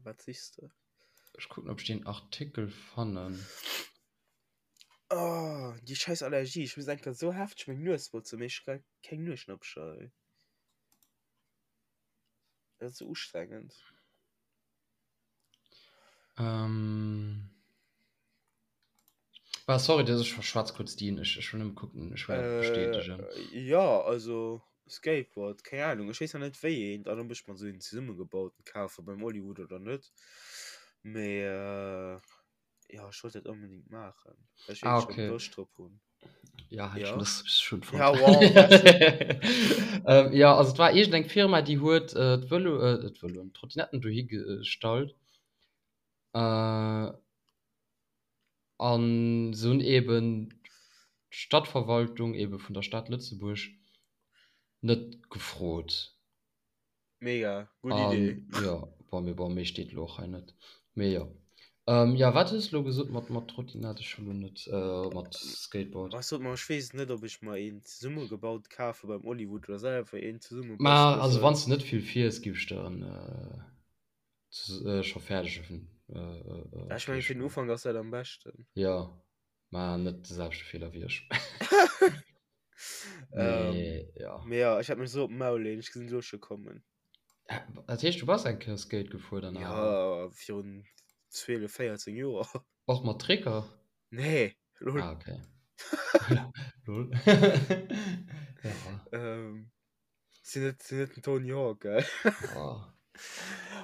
Wat sichs de? Ech kucken ob ech deen Artikel fannen. Oh, déi scheiß Allergie. Ech muss enker sou hefteg meng Nues botzen, mee ech hu keng Nueschnappcher ey. Dat ass sou ustrengend. Ähm. Ah, sorry, dass ech verschwatz kurz dien. Ech, ech will nëmme kucken, ech will äh, bestätigen. Ja, also Skateboard, keng Ahnung. Ech weess nach net wéi een, dann ob ech mer sou een zesummegebauten kafe beim Hollywood oder net. Mee äh, ja, ech wollt dat onbedingt maachen, well ech Ah, wierklech okay. Loscht drop hunn. Ja, hat Ja. schon, das ist schon Ja, wow, weißt du. ähm, ja, also et war irgend eng Firma, déi huet äh, d'Vëlo, äh, d'Vëloen, d'Trottinetten dohi gestallt. Äh, an se hunn eben d'Stadtverwaltung eben vun der Stad Lëtzebuerg net gefrot. Mega, gutt Idee. An jo, bon, mee bon, méi steet elo och hei net. Mee jo. Ähm, ja, wat hues de elo gesot mat, mat Trottinett? Ech hu lo net, äh, mat Skateboard. Ech sot mer, ech weess net, ob ech mer een zesummegebaut kafe beim Hollywood oder selwer een zesumme Ma also wann s de net vill fiers, giff ech der en, äh, scho fäerdegen äh, Ech mengen, fir den Ufank ass dat am beschten. Jo, ma net de selwechte Feeler wéi ech. Mee jo. Mee jo, ech hat mech esou op d'Maul leen, ech gesinn elo scho kommen. Dat heescht, du bass eng Kéier Skate gefuer dann awer? Jo, virun 12, 14 Joer. Och mat Tricker? Nee, lol. Ah, okay. Lol. Ja. Sinn net, sinn net den Tony Hawk, gell? Oh.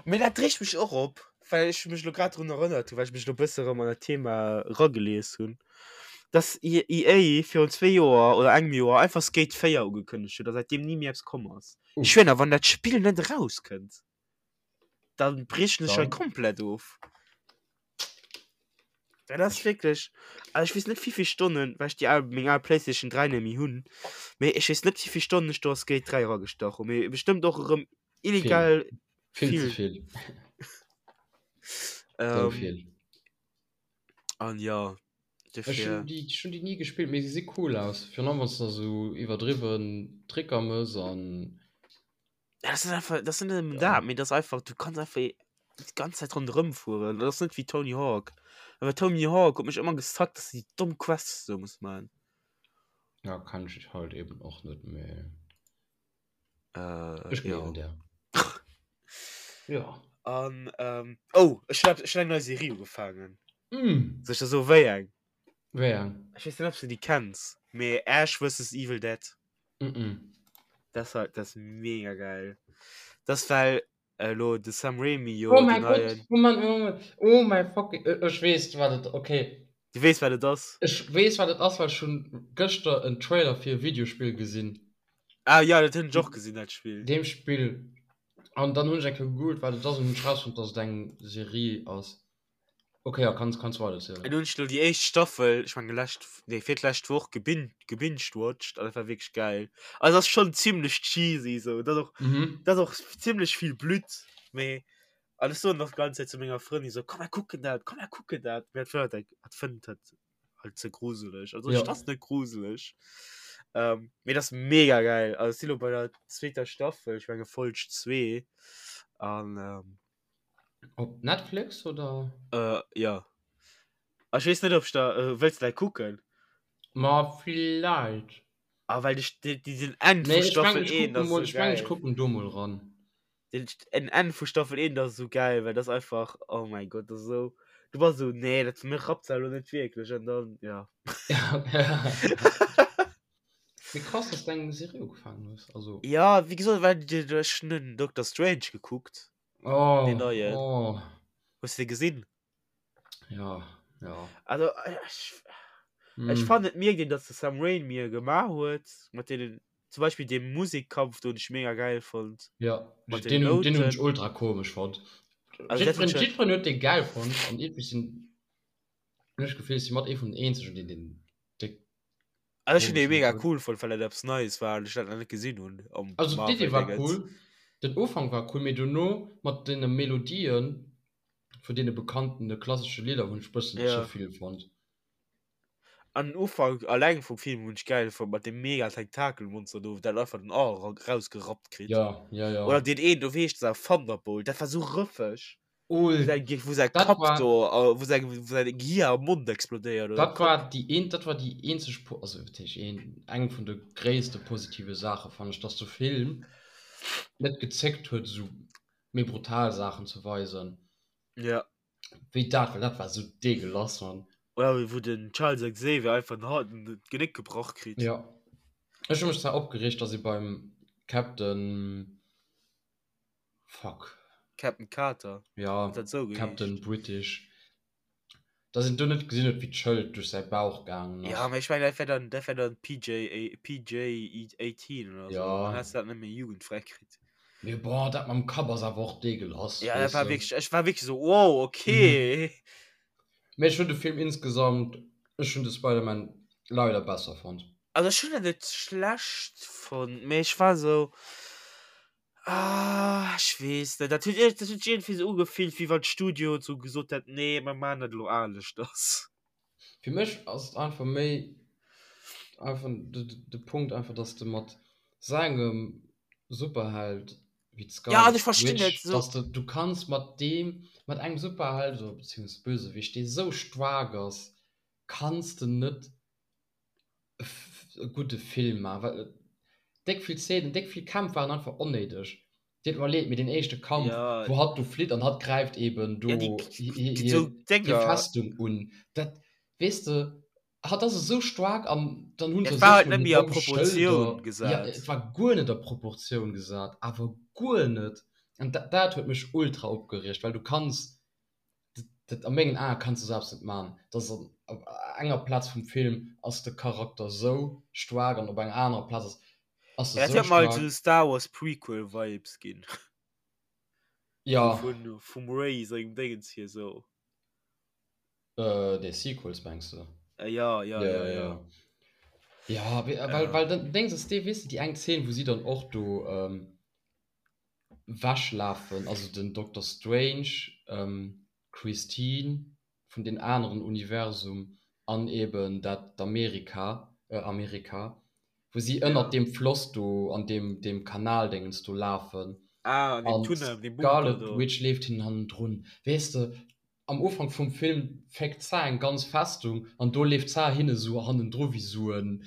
Mee dat reegt mech och op, well ech mech lo grad drun erënnert hunn, well ech mech lo bësse rëm an dat Thema ragelies hunn, dass EA virun zwee Joer oder engem Joer einfach Skate 4 ugekënnegt huet a säitdeem ni méi eppes komm ass. Ech schwéier, wann dat Spill net erauskënnt, dann briechen ech hei komplett of. Dat ass wierklech, also ech weess net wéivill Stonnen, well ech déi al, meng al Playstation 3 net méi hunn, mee ech weess net wéivill Stonnen ech do a Skate 3 eragestach hunn, mee bestëmmt och erëm illegal vill. Vill ze vill. Sou vill. An jo, Ech hunn déi, ech hunn déi ni gespillt, mee se si cool aus, virun allem wann s de da sou iwwerdriwwen Tricker mëss an. Ja, das ist einfach, das sind ja. da, mir das einfach, du kannst einfach die ganze Zeit rundherum fuhren. Das ist nicht wie Tony Hawk. Aber Tony Hawk hat mich immer gesagt, dass die dumm Quests so muss man. Ja, kann ich halt eben auch nicht mehr. Äh, ich ja. der. ja. An, ähm, oh, ich hab, ich hab eine neue Serie angefangen. Mm. Soll ich das so wéi eng? Wéi eng? Ech weess net, ob s du déi kenns, mee Ash vs. Evil Dead. Mm -mm. Das war, das mega geil. Das well elo de Sam Raimi jo Oh mäi Gott, Moment, Moment, oh mäi fucking, ech weess wat et, okay. Du weess wat et ass? Ech weess wat et ass, well ech hunn gëschter en Trailer fir e Videospill gesinn. Ah ja, dat hunn ech och gesinn, dat Spill. Deem Spill. An dann hunn ech eng Kéier gegoogelt wat et ass an hunn ech rausfonnt, dass et eng Serie ass. Okay, ja, kannst, kannst weiter erzählen. An hunn ech lo déi éischt Staffel, ech menge lescht, nee, fir d'lescht Woch gebin gebingewatcht an dat war wierklech geil. Also ass schon zimmlech cheesy sou, dat och, Mhm. dat och zimmlech vill Blutt, mee an ech soen och d'ganz Zäit zu menger Frëndin sou, komm mer kucken dat, komm mer kucken dat, mee hat fënnt hat fënnt dat halt ze gruseleg. Also Ja. dat ass net gruseleg. Ähm, mee dat ass mega geil. Also ech si lo bei der zweeter Staffel, ech menge Folg zwee an ähm, Op Netflix oder? Äh, ja. Ech weess net, ob ech da, äh, wëlls du dat kucken? Ma villäit. Ah, well ech, déi, déi, den Enn Nee, vu ech meng, Staffel ech 1 kucken ass mol, sou ech meng, ech geil. kucken do mol ran. Den, den Enn vu Staffel 1 ass sou geil, well dat ass einfach, oh mäi Gott, dat ass sou, du bass sou, nee, dat mir rappt se elo net wierklech an dann, ja. Mee krass, dass du eng Serie ugefaangen hues. Also. Ja, wéi gesot, well ech hunn den Doctor Strange gekuckt. Oh, Den neien. oh. Hues du de gesinn? Ja, ja. Also, ech, ech Mm. fannen, et mierkt een, dass de Sam Raimi e gemaach huet, mat deenen, zum Beispill deem Musikkampf do hunn ech mega geil fonnt. Ja, Mat den den, hun- den hunn ech Nouten. ultra komesch fonnt. Also, dat Jiddferen, huet schon, jiddferen huet dee geil fonnt an irgendwie sinn, hunn ech d'Gefill, ech si mat ee vun den eenzegen, deen den déck also ech hunn dee komesch fonnt mega huet. cool fonnt, well dat eppes Neies war an ech dat nach net gesinn hunn am Also d'Idee war Marvel-Dingens. cool, den Ufank war cool, mee dono mat deene Melodien vun deene bekannten klassesche Lidder hunn ech bëssen ze Ja. vill fonnt. An den Ufank alleng vum Film hunn ech gäil fonnt, mat deem mega Tentakelmonster do, dat einfach den Ar rausgerappt kritt. Ja, ja, ja. Oder deen een do, wéi heescht dat, Thunderbolt, dat war sou rëffeg. Ul, Wou säi, wou säi dat Kapp war, do, wou säi, wou säin Gehir am Mond explodéiert oder dat Kapp. war déi een, dat war déi eenzeg, also wat heescht een, eng vun de gréisste positive Saache fannen ech, dass de Film net gezéckt huet esou méi brutal Saachen ze weisen. Ja. Wéi dat, well dat war sou deegelass, Mann. Oder wéi wou den Charles Xavier einfach den Hals, d'Genéck gebrach kritt. Ja. Ech hu mech zwar opgereegt, dass ee beim Captain, fuck. Captain Carter, Ja, huet dat sou geheescht? Captain British, dass een do net gesinn huet, wéi d'Schëld duerch säi Bauch gaangen Ja, ass. mee ech mengen, dat wär dann, dat wär dann PJ, PJ 18 oder sou. Ja. Dann häss de dat net méi jugendfräi kritt. Mee boah, dat mam Kapp ass awer och deegelass, Ja, dat weess war de. wierklech, ech war wierklech sou, wow, okay. Mee ech hunn de Film insgesamt, ech hunn de Spider-Man leider besser fonnt. Also ech hunn en net schlecht fonnt, mee ech war sou, ah, ech weess net, dat huet dat huet sech iergendwéi sou ugefillt, wéi wann d'Studio sou gesot hätt, nee, mer maachen dat elo aneschters. Fir mech ass et einfach méi einfach de, de Punkt einfach, dass de mat sou engem Superheld wéi Ja, also d'Scarlet ech verstinn Witch, net so. dass de, du kanns mat deem, mat engem Superheld oder beziehungsweise Bösewicht, dee sou staark ass, kanns de net e gudde Film maachen, well déck vill Szenen, déck vill Kämpf waren einfach onnéideg. Deet mer leed, mee deen éischte Kampf, Ja, wou hatt do flitt an hatt gräift eben ja, déi do hir, hir, so hir Dénger. Festung un, dat, weess de, hatt ass esou staark an dann hunn Et se war sech halt mol net hir méi a domm Proportioun Schëlder, ja, gesat. et war guer net a Proportioun gesat, awer guer net. An dat, dat huet mech ultra opgereegt, well du kanns, dat, dat a mengen Ae kanns du selbst net man, dass an, op enger Plaz vum Film ass de Charakter esou staark an op enger anerer Plaz ass, ass e Ja, dat sou huet mer halt staark. sou Star Wars Prequel Vibes ginn. So Ja. vun, vum Rey sengem Déngens hier sou. Äh, déi Sequels mengs de? Äh, ja, ja, Ja, ja, ja, ja. ja. Ja, we- well, Äh. well dann Dings ass dee, weess de, déi eng Zeen, wou si dann och do ähm, wechlafen, also den Doctor Strange, ähm, d'Christine vun deem aneren Universum an eben dat d'Amerika, äh, Amerika, wou si ënnert Ja. deem Floss do an deem, deem Kanaldéngens do lafen Ah, an deem an Tunnel, an deem Bunker d'Scarlet do. Witch leeft hinnen hannendrun. Weess de, am Ufank vum Film féckt d'Sa eng ganz Festung an do leeft d'Sa hinne sou hannendru wéi sou en,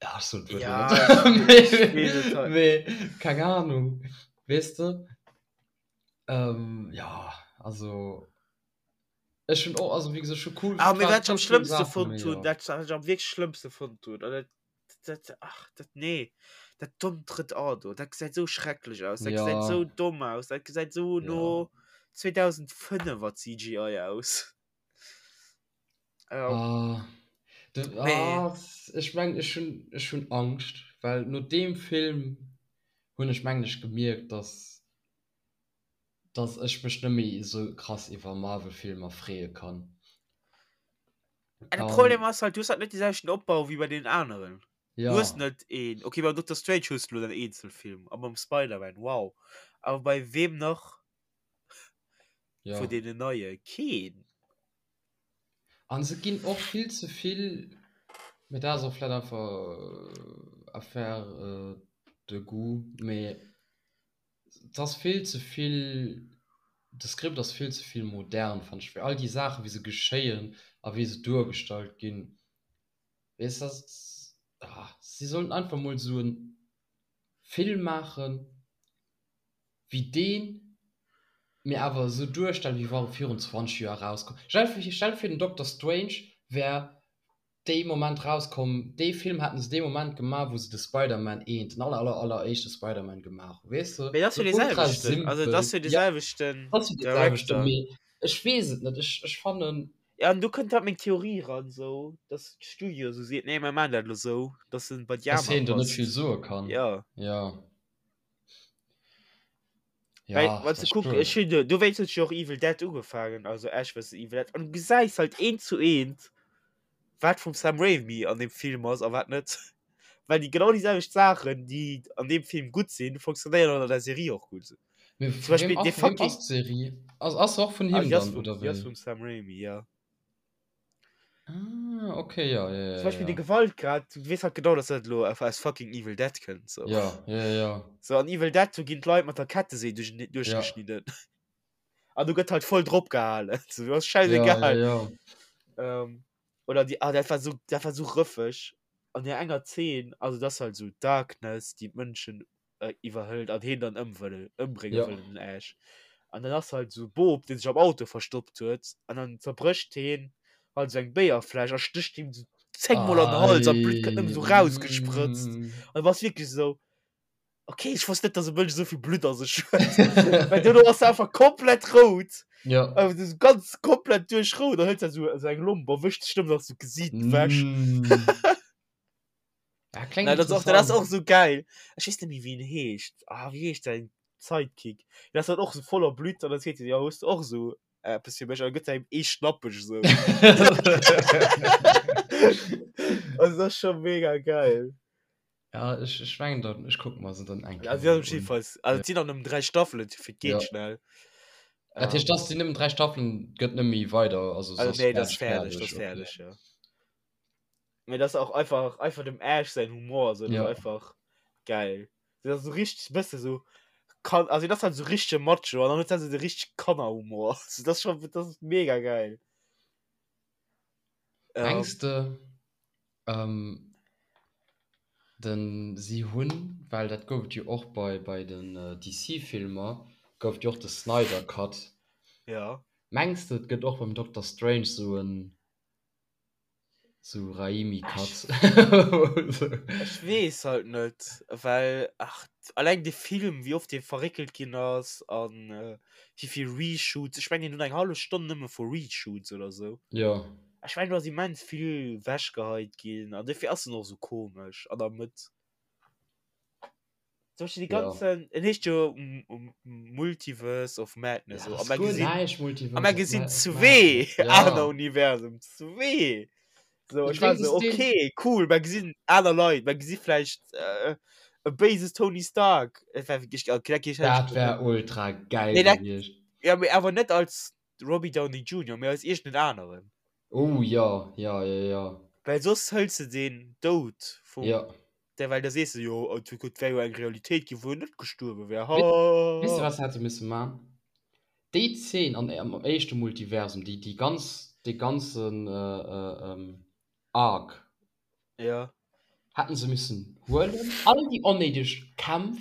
ja, ech soen d'Wuert elo Ja, net, ech, ech weess et mee, halt. mee keng Ahnung, weess de? Ähm, ja, also ech hunn och, also wéi gesot, ech hu cool, Ah, mee war wat ech am cool schlëmmste Saachen, fonnt mee hunn, jo. dat wat ech am wierklech schlëmmste fonnt hunn, an dat, dat, ach, dat, nee, dat dommt drëtt A do, dat gesäit sou schrecklech aus, dat gesäit Ja, sou domm aus, dat gesäit sou ja. no 2005er CGI aus. Ja. Ah, de, Mee, ah, ech meng, ech hunn, ech hunn Angscht, well no deem Film hunn ech mengen ech gemierkt, dass, dass ech mech net méi esou krass iwwer Marvel-Filmer freeë kann. Ah, de Problem An ass halt, du hues halt net dee selwechten Opbau wéi bei deenen aneren. Du hues ja, net een, okay, beim Doctor Strange hues du lo den Eenzelfilm a beim Spider-Man, wow. Awer bei weem nach vun ja. deenen neie? Keen. An se ginn och vill ze vill, mee dat ass och vläit einfach Affaire de goût, mee Et ass vill ze vill, de Script ass vill ze vill modern, fannen ech, fir all déi Saachen, wéi se geschéien a wéi se duergestallt ginn. Weess de, ah, si sollten einfach mol esou e Film maachen, wéi deen, mee awer esou duerstellen, wéi wa e virun 20 Joer erauskomm. Stell dir vir, den Doctor Strange wär. Dee Moment rauskomm, dee Film haten se dee Moment gemaach, wou se de Spider-Man eent, den aller, aller, alleréischte Spider-Man gemaach hunn, weess de? Mee dat ass jo dee selwechten, also dat ass jo dee selwechten Dat ass jo dee selwechten, mee ech weess et net, ech, ech fannen. Ja, an do kënnt halt meng Theorie ran, sou, dass d'Studio sou seet, nee, mer maachen dat elo sou, dass en bei déi Dass aner hien do net passt. vill soe kann. Ja. Ja. Ja, Well, wann dat du ass kuck, spuer. ech hunn do, dowéinst hunn ech jo och Evil Dead ugefaangen, also Ash vs. Evil Dead, an du gesäis halt eent zu eent, wat vum Sam Raimi an deem Film ass a wat net. Well déi genau déi selwecht Saachen, déi an deem Film gutt sinn, funktionéieren an der Serie och gutt. Mee Zum vu Beispill wem dee ass, vu wem fucking ass d'Serie? Ass, ass se och vun Ah, him déi ass dann, vum, oder déi ass wéi? vum Sam Raimi, ja. Ah, okay, ja, ja, Zum ja, Beispiel de ja. Gewaltgrad, du weess halt genau, dass dat elo aus fucking Evil Dead kënnt, so. Ja, ja, ja. So, an Evil Dead, do ginn d'Leit mat der Kettesee duerch, Ja. duerchgeschnidden. An du gëtt halt voll drop gehalen. So, du ass Ja, ja, scheißegal. ja. Ähm, oder die, ah, dat war so, dat war so rëffeg. An der enger Zeen, also das halt so Darkness, déi d'Mënschen äh, iwwerhëlt an heen dann ëmwëll, ëmbrénge Ja. wëll, den Ash. An dann ass halt so Bob, deen sech am Auto verstoppt huet, an dann zerbrécht heen halt so eng Béierfläsch a stécht him so zéngmol an den Hals an d'Blutt kënnt nëmmen Ei, so rausgesprëtzt. mm. An du bass wierklech esou, okay, ech wosst net, dass e Mënsch esou vill Blutt a sech huet. Well duerno ass se einfach komplett rout. Ja. Also so ganz komplett duerchrout. Dann hëlt se so, so eng Lomp a wëscht sech nëmmen nach so d'Gesiit ewech. Mm. Ja, klingt Nein, das ist auch, das ist interessant. auch so geil. Ich weiß nicht mehr, wie ihn heescht. Ah, wie heescht sein Sidekick? Das ist halt auch so voller Blut. Und dann seht ihr, ja, hast du auch so äh, etwas für mich. Und dann gibt er ihm eh schnappig so. Also, das ist schon mega geil. Ja, ich, ich mengen dann, ich guck mal se dann eng Also, Kéier ja, un. jedenfalls. Also, Ja. es sind auch nur drei Staffeln, für geht Ja. schnell. Dat heescht, Ähm, dass déi nëmmen 3 Staffeln gëtt net méi weider, also also, ass nee, das ist fertig, fertig, das ist okay. fertig, ja. Mee das auch einfach einfach dem Ash sein Humor so, das Ja. einfach geil. Das ist so richtig bësse so kann also das halt so richtige Macho an dann huet se de richtig Kannerhumor. So, das ist schon das ist mega geil. Ähm, Mengs de ähm, den si hunn, well dat gouf et jo och bei bei den DC-Filmer, gouf et jo och de Snyder Cut. ja. Mengs de et gëtt och beim Doctor Strange sou en Sou Raimi Cut. Ech weess halt net, well ach alleng de Film wéi oft dee verréckelt ginn ass an wéi vill Reshoots, ech mengen deen huet eng hallef Stonn nëmme vu Reshoots oder sou. Jo. Ech mengen do ass immens vill wechgeheit ginn an dofir ass en och sou komesch an der Mëtt. Zum Beispiel die Ja. ganzen, en heescht jo Multiverse of Madness. Ja, so. das A mer guer gesinn, näischt a Multiverse mer of gesinn Ma- of zwee Madness. Ja. aner Universum, zwee. So, Das ech war Ding so, ist den- okay, cool, mer gesinn aner Leit, mer gesi vläicht äh, e béises Tony Stark. Et war wirklich, okay, dat geet Dat wär ultra geil Nee, dat- gewiescht. Ja, mee awer net als Robbie Downey Jr., mee als iergendeen aneren. Oh ja, ja, ja, ja. Well soss hëls de den Doud vum Ja. Der, well da sees de jo, oh, et wär jo eng Realitéit ginn, wou en net gestuerwe wär. Ha! Weess de, wat se hätte misse man? Déi Zeen an, am éischte Multiversum, déi, déi ganz, dee ganzen Arc, Ja. hätten se missen huelen. All déi onnéideg Kämpf,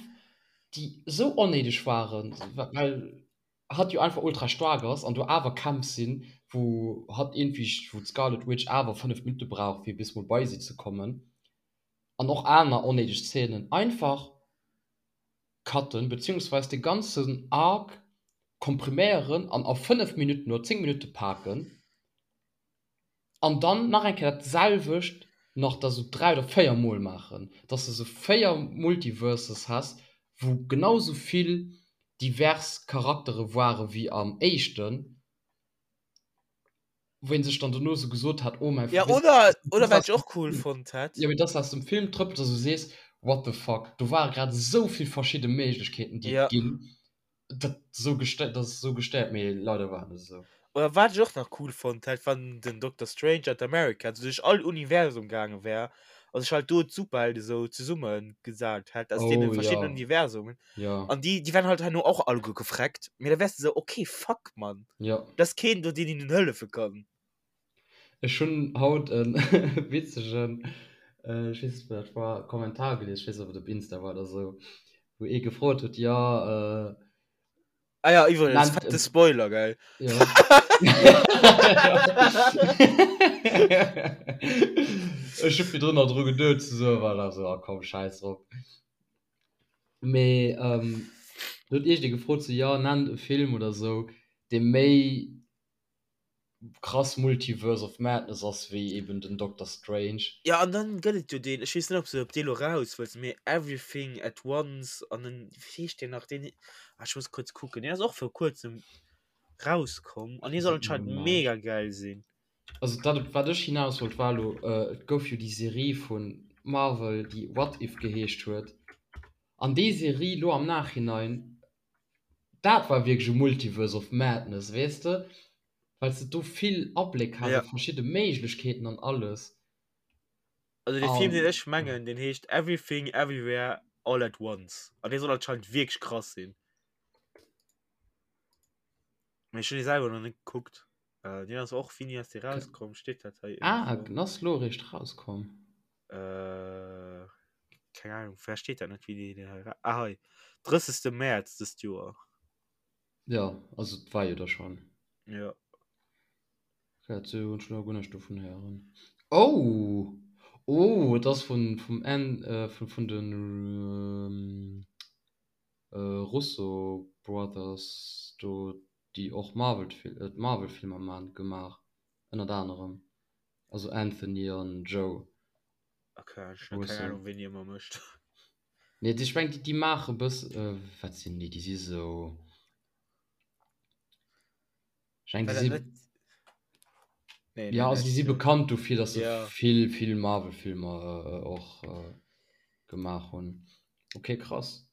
déi esou onnéideg waren, well hatt jo einfach ultra staark ass an do awer Kämpf sinn, wou hatt iergendwéi, wou d'Scarlet Witch awer 5 Minutte brauch, fir bis mol bei si ze kommen. an och aner onnéideg Szenen einfach cutten, beziehungsweise de ganzen Arc kompriméieren an a 5 Minutten oder 10 Minutte paken an dann nach eng Kéier dat selwecht nach da sou 3 oder 4 mol maachen, dass de sou 4 Multiverses häss, wou genau sou vill divers Charaktere ware wéi am éischten. wou een sech dann dono sou gesot hat, oh mäi Ja, oder, oder wat ech och cool fonnt hätt. Jo, mee dass aus dem Film trëppelt a sou sees, what the fuck, do ware grad esou vill verschidde Méiglechkeeten, déi et ginn, dat sou gestéiert, dat ass sou gestéiert, mee leider war et net esou. Oder wat ech och nach cool fonnt hätt, wann den Doctor Strange an America sou duerch all Universum gaange wär a sech halt do d'Superhelde sou zesumme gesat hätt aus deene Oh, verschiddenen ja. Universumen. Ja. An déi, déi wären halt herno och alleguer gefreckt. Mee da wäers de sou, okay, fuck, Mann. Ja. Da ass keen do, deen hinnen hëllefe kann. Ech hunn haut e witzegen, ech weess net, wou dat war, Kommentar gelies, ech weess net, ob et op Insta war oder sou, wou ee gefrot huet, jo, Ah ja, iwwregens, Nennt fette Spoiler, gell? Ja. Ech hu virdrun nach dru geduet ze soen, war da sou, ah komm, schäiss drop. Mee do huet iergendee gefrot, sou, jo, nennt e Film oder sou, dee méi krass Multiverse of Madness ass wéi eben den Doctor Strange. Jo, an dann gëtt et jo deen, ech weess net, ob s de op dee lo raus wëlls, mee Everything at Once an den, wéi heescht deen nach, deen, ah, ech muss kuerz kucken, deen ass och vir kuerzem rauskomm an dee soll anscheinend mega gäil sinn. Also dat, op wat ech hinaus wollt, war elo, et gouf jo déi Serie vu Marvel, déi What If geheescht huet, an déi Serie lo am Nachhinein, Dat war wierklech e Multiverse of Madness, weess de, well s de do vill Abléck has op verschidde Méiglechkeeten an alles. Also dee Film, deen ech mengen, deen heescht Everything Everywhere All at Once an dee soll anscheinend wierklech krass sinn. Mee ech hunn dee selwer nach net gekuckt. Deen ass och, wéini ass dee rauskomm? Steet dat hei Ah, den ass lo eréischt rauskomm. Äh, keng Ahnung, vläicht steet dat net, wéini deen hei ra-, ah hei, 30. Mäerz dëst Joer. Jo, also et war jo da schonn. Jo. Okay, dat hunn ech lo guer näischt dovun héieren. Oh! Oh, et ass vun, vum Enn, vun, vun de Russo Brothers do, déi och Marvel, d'Marvel-Filmer man, gemaach, ënnert anerem. Also Anthony an Joe. Okay, ech hun keng Ahnung ween déi ëmmer mécht. Nee, ech meng déi maache bëss, wat sinn déi, déi si sou, ech meng déi si, jo also déi si bekannt dofir, datt se vill vill Marvel Filmer och gemaach hunn. Okay krass.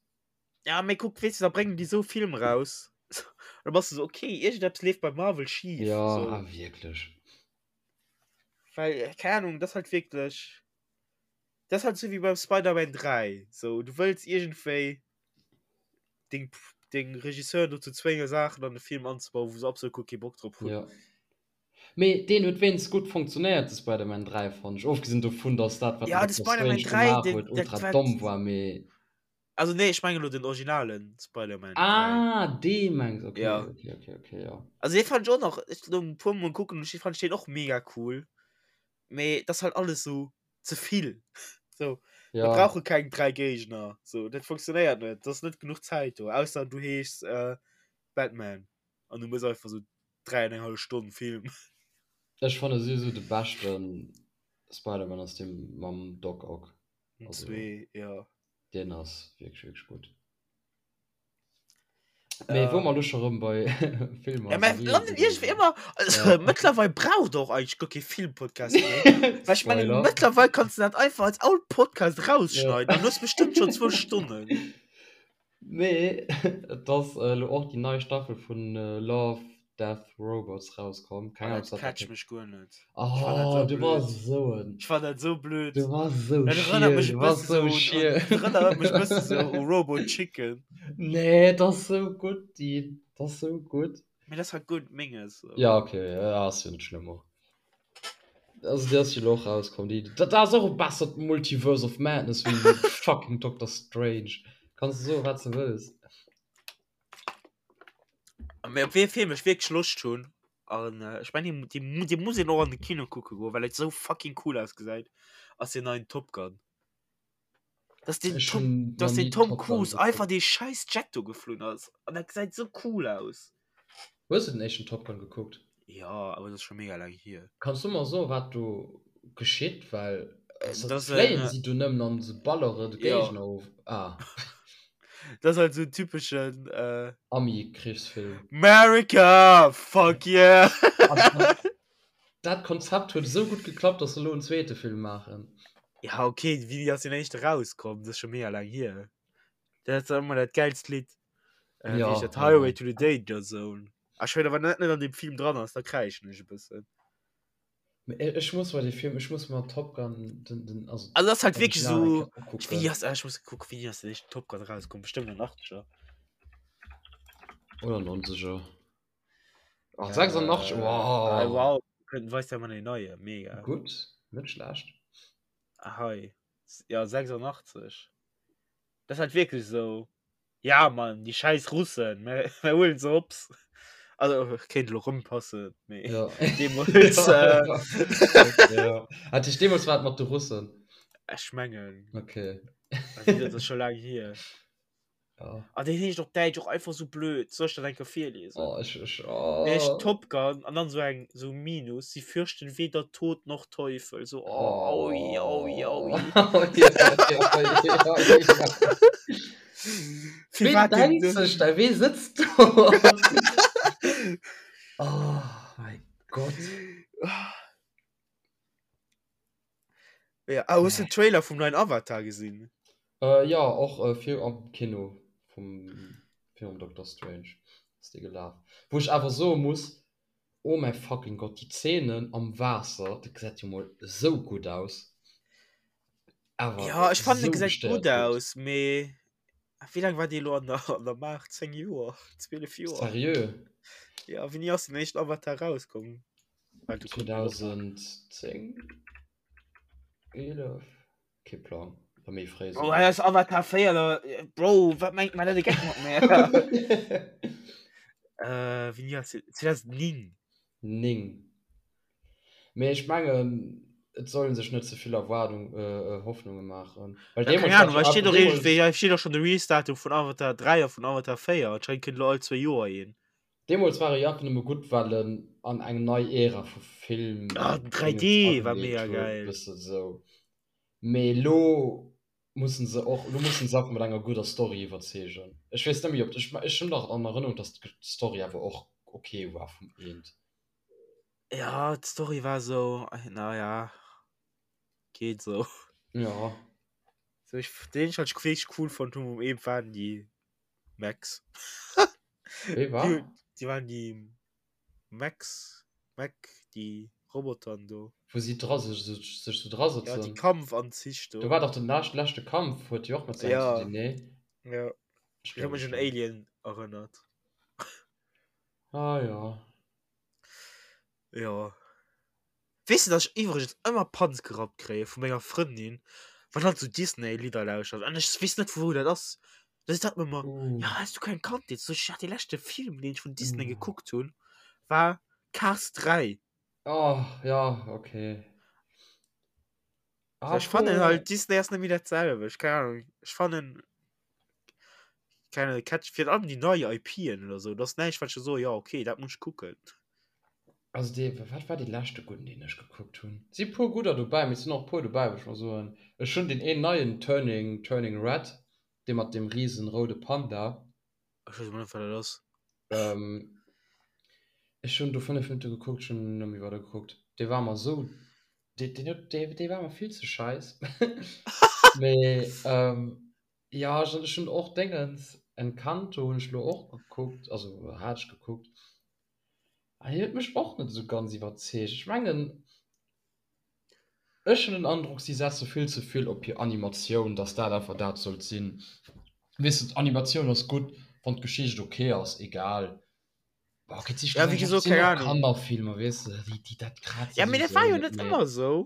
Ja mee kuck weess de da bréngen déi sou Film raus da bass de sou okay iergendeppes leeft bei Marvel schif. Jo ah wierklech. Well äh, keine Ahnung, das halt wirklich das halt so wie beim Spider-Man 3 so du wëlls irgendwéi deng deng Regisseur dozou zwénge Saachen an de Film anzebauen, wou se absolut guer kee Bock drop hunn. Ja. Mee deen huet wéinstens gutt funktionéiert, de Spider-Man 3 fand ech, ofgesinn dovun, dass dat wat Ja, de den Doctor Spider-Man Strange 3, gemaach den, huet dat ultra war domm war, mee Also nee, ech mengen elo den originalen Spider-Man 3. Ah, dee mengs, okay, Ja. okay, okay, okay, ja. Also dee fand ech och nach, ech lo e puer mol kucken, ech fand deen och mega cool. Mee dat ass halt alles sou ze vill. So, mir Ja. brauche keng 3 Géigner. So, dat funktionéiert net. Dat ass net genuch Zäit do. Ausser du heeschs äh, Batman an du mëss einfach sou 3 an eng hallef Stonn Film. Ech fanne souwisou de beschte Spider-Man ass dee mam Doc Ock. Also, Zwee, ja. Deen ass wierklech, wierklech gutt. Mee wou mer elo scho rëm bei Filmer Ja, a mä Serien landen sinn, iergendwéi ëmmer, also Ja. mëttlerweil braucht och eigentlech guer kee Filmpodcast méi. Well ech mengen, Spoiler. mëttlerweil kanns de dat einfach als all Podcast Ja. rausschneiden an du hues bestëmmt schonn zwou Stonnen. Mee et ass elo och déi nei Staffel vun Love, Death, Robots rauskomm. Keng Oh, Ahnung, dat ob dat catcht dat mech guer net. Ech fand dat Oh, sou du blöd. bass esou en. Ech fand dat sou blöd. Du bass esou Dat erënnert schiel, mech e du bass bësse sou sou un, un, schiel. dat erënnert mech e bësse sou u Robo Chicken. Nee, et ass sou gutt, Dean. Et ass sou gutt. Mee dat ass halt guer net menges. So. Ja, okay, ja, ass jo net schlëmm och. Also déi ass jo elo och rauskomm. Déi, dat ass och e bessert Multiverse of Madness wéi fucking Doctor Strange. Kanns de soen, wat s de wëlls. Mee op wee Film ech wierklech Loscht hunn, an ech mengen dee, dee, dee muss een och an de Kino kucke goen, well et sou fucking cool ausgesäit, ass deen neien Top Gun. Dass den Ech Tom, hunn dass nach den ni Tom Top Gun Cruise einfach gekuckt. dee scheiß Jet do geflunn ass an dat gesäit sou cool aus. Hues de den éischten Top Gun gekuckt? Jo, awer dat ass scho mega laang hier. Kanns du mer soen wat do geschitt? Well Äh, se dat ass en, fléien si do nëmmen an se ballere de jo. Géigner of? Ah. Dat ass halt sou en typeschen äh, Ami-Krichsfilm. America! Fuck yeah! An, an dat Konzept huet esou gutt geklappt, dass se elo en zweete Film maachen. Ja, okay, wéini ass deen éischte rauskomm? Dat ass scho mega laang hier. Dat ass ëmmer dat gäilst Lidd. Äh, wéi Ja, heescht dat? ja, Highway ja. to the Danger Zone. Ah, ech weess, wann dat net an deem Film dran ass, da kräischen ech e bëssen. Mee e- ech muss mer dee Film, ech muss mer Top Gun, den, den, also Also, das ist halt wirklich Original eng so. Kéier Ich, wie ukucken. ass, ah, ich muss gucken, wéini ass den éischten Top Gun rauskomm? Bestimmt an den 80er. Oder 90er. Ach, 86, Äh, ah, wow. wow. Kënnt, weist ja mal den neie, mega. Gutt, net schlecht. Ah, hei. Ja, 86. Das ist halt wirklich so. Ja, Mann, die scheiß Russen, mir, mir holen se hops. Also kéint elo rëmpassen, mee Ja. deemools äh, Okay, ja. Hat dich deemools war et mat de Russen. ech mengen, Okay. also dat ass scho laang hier. Ja. Ah, deen heescht op Däitsch och einfach sou blöd. Soll ech dat eng Kéier virliesen? Oh, ech, ech, Deen heescht oh. Top Gun an dann sou eng sou Minus, sie fürchten weder Tod noch Teufel. So, oh, aui, aui, aui. Oh. Ja, ja, ja, ja. Fir Ween wat den denkt de sech da, wee sëtzt do? Oh mein Gott. Ja, ah, hues du den Trailer vum neien Avatar gesinn? Äh, ja, och äh, fir am Kino vum virum Doctor Strange ass dee gelaf. Wou ech awer soe muss, oh mäi fucking Gott, déi Zeenen am Waasser, dat gesäit jo mol esou gutt aus. Awer Ja, ech fannen, e esou gesäit gestéiert gutt gutt. aus, mee wéi laang war dee elo an der, an der Maach? 10 Joer? 12 Joer? Seriö? Ja, wéini ass den éischten Avatar rauskomm? Warte, kucken wir op. 2010? 11? Kee Plang. Oder méi fréi Oh, souguer. dat ass Avatar 4, da, Bro, wat mengt man dat e Geck mat mär? Äh, wéini ass deen? 2009. 9. Mee ech mengen, et soll een sech net ze vill Erwaardung, äh, Hoffnunge maachen. Well Ja, keng deemools war Ahnung, jo hei steet awer och deemools. iergendwéi, hei steet och schonn de Release-Datum vun Avatar 3 a vun Avatar 4. Anscheinend kënnt elo all zwéi Joer een. Deemools war e jo einfach nëmme gutt, well en an eng nei Ära vu Film Ah, den Dingens 3D war ageleet mega huet, geil. bësse sou. Mee elo mussen se och, elo mussen se einfach mat enger gudder Story iwwerzeegen. Ech weess net méi, ob, ech, ech hunn dach an Erënnerung, datt d'Story awer och ok war vum Eent. Ja, d'Story war sou, naja, geet sou. Ja. Sou, ech, deen ech halt wierklech cool fonnt hunn um Eent waren déi Max. Wéi war? Déi, déi waren déi Max, Mac, déi Robotern do. Wou si dra sech, sech sou dra Ja, déi sëtzen. Kampfanzich Do do. war dach den lescht, leschte Kampf, huet jo och mat se Ja. ze dinn, nee? Ja. Ech Ech huet mech un Alien erënnert. Ah ja. Jo. Weess de, dass ech iwwregens ëmmer Panz gerappt kréie vu menger Frëndin, wann hatt sou Disney-Lidder lauschtert an ech weess net vu wou dat ass. Da seet hatt mer ëmmer, ja has du keng Kandheet? Sot ech, ja dee leschte Film deen ech vun Disney gekuckt hunn war Cars 3. Oh ja, okay. Ech fannen halt Disney ass net méi dat selwecht, keng Ahnung. Ech fannen keng Ahnung, catch virun allem déi nei IPen oder sou, dat ass näischt wat ech soe jo okay dat muss ech kucken. Also dee, wat war dee leschte gudden deen ech gekuckt hunn? Et si puer gudder dobäi, mee et sinn och puer dobäi wou ech mer soen, ech hunn deen een neien Turning, Turning Red, dee mat deem riesen roude Panda. Ech weess emol net wat dat ass. Ech hunn do 5 Minutte gekuckt, ech hunn net méi weider gekuckt. Dee war mer esou, dee, deen huet, dee, dee war mer vill ze scheiss. Mee jo, ech ech hunn och Déngens, Encanto hunn ech elo och gekuckt, also hat ech gekuckt. An deen huet mech och net esou ganz iwwerzeegt. Ech mengen, Ech hunn den Androck, si setze vill ze vill op hir Animatioun, dass dat einfach dat sollt sinn. Weess de, d'Animatioun ass gutt, wann d'Geschicht ok ass, egal. Bon, ok, et si Ja, wéi schlussendlech gesot, sinn keng och Ahnung. Kannerfilmer, weess de, déi, déi, dat kraazt Ja, mee dat war souwisou jo net net méi. ëmmer esou.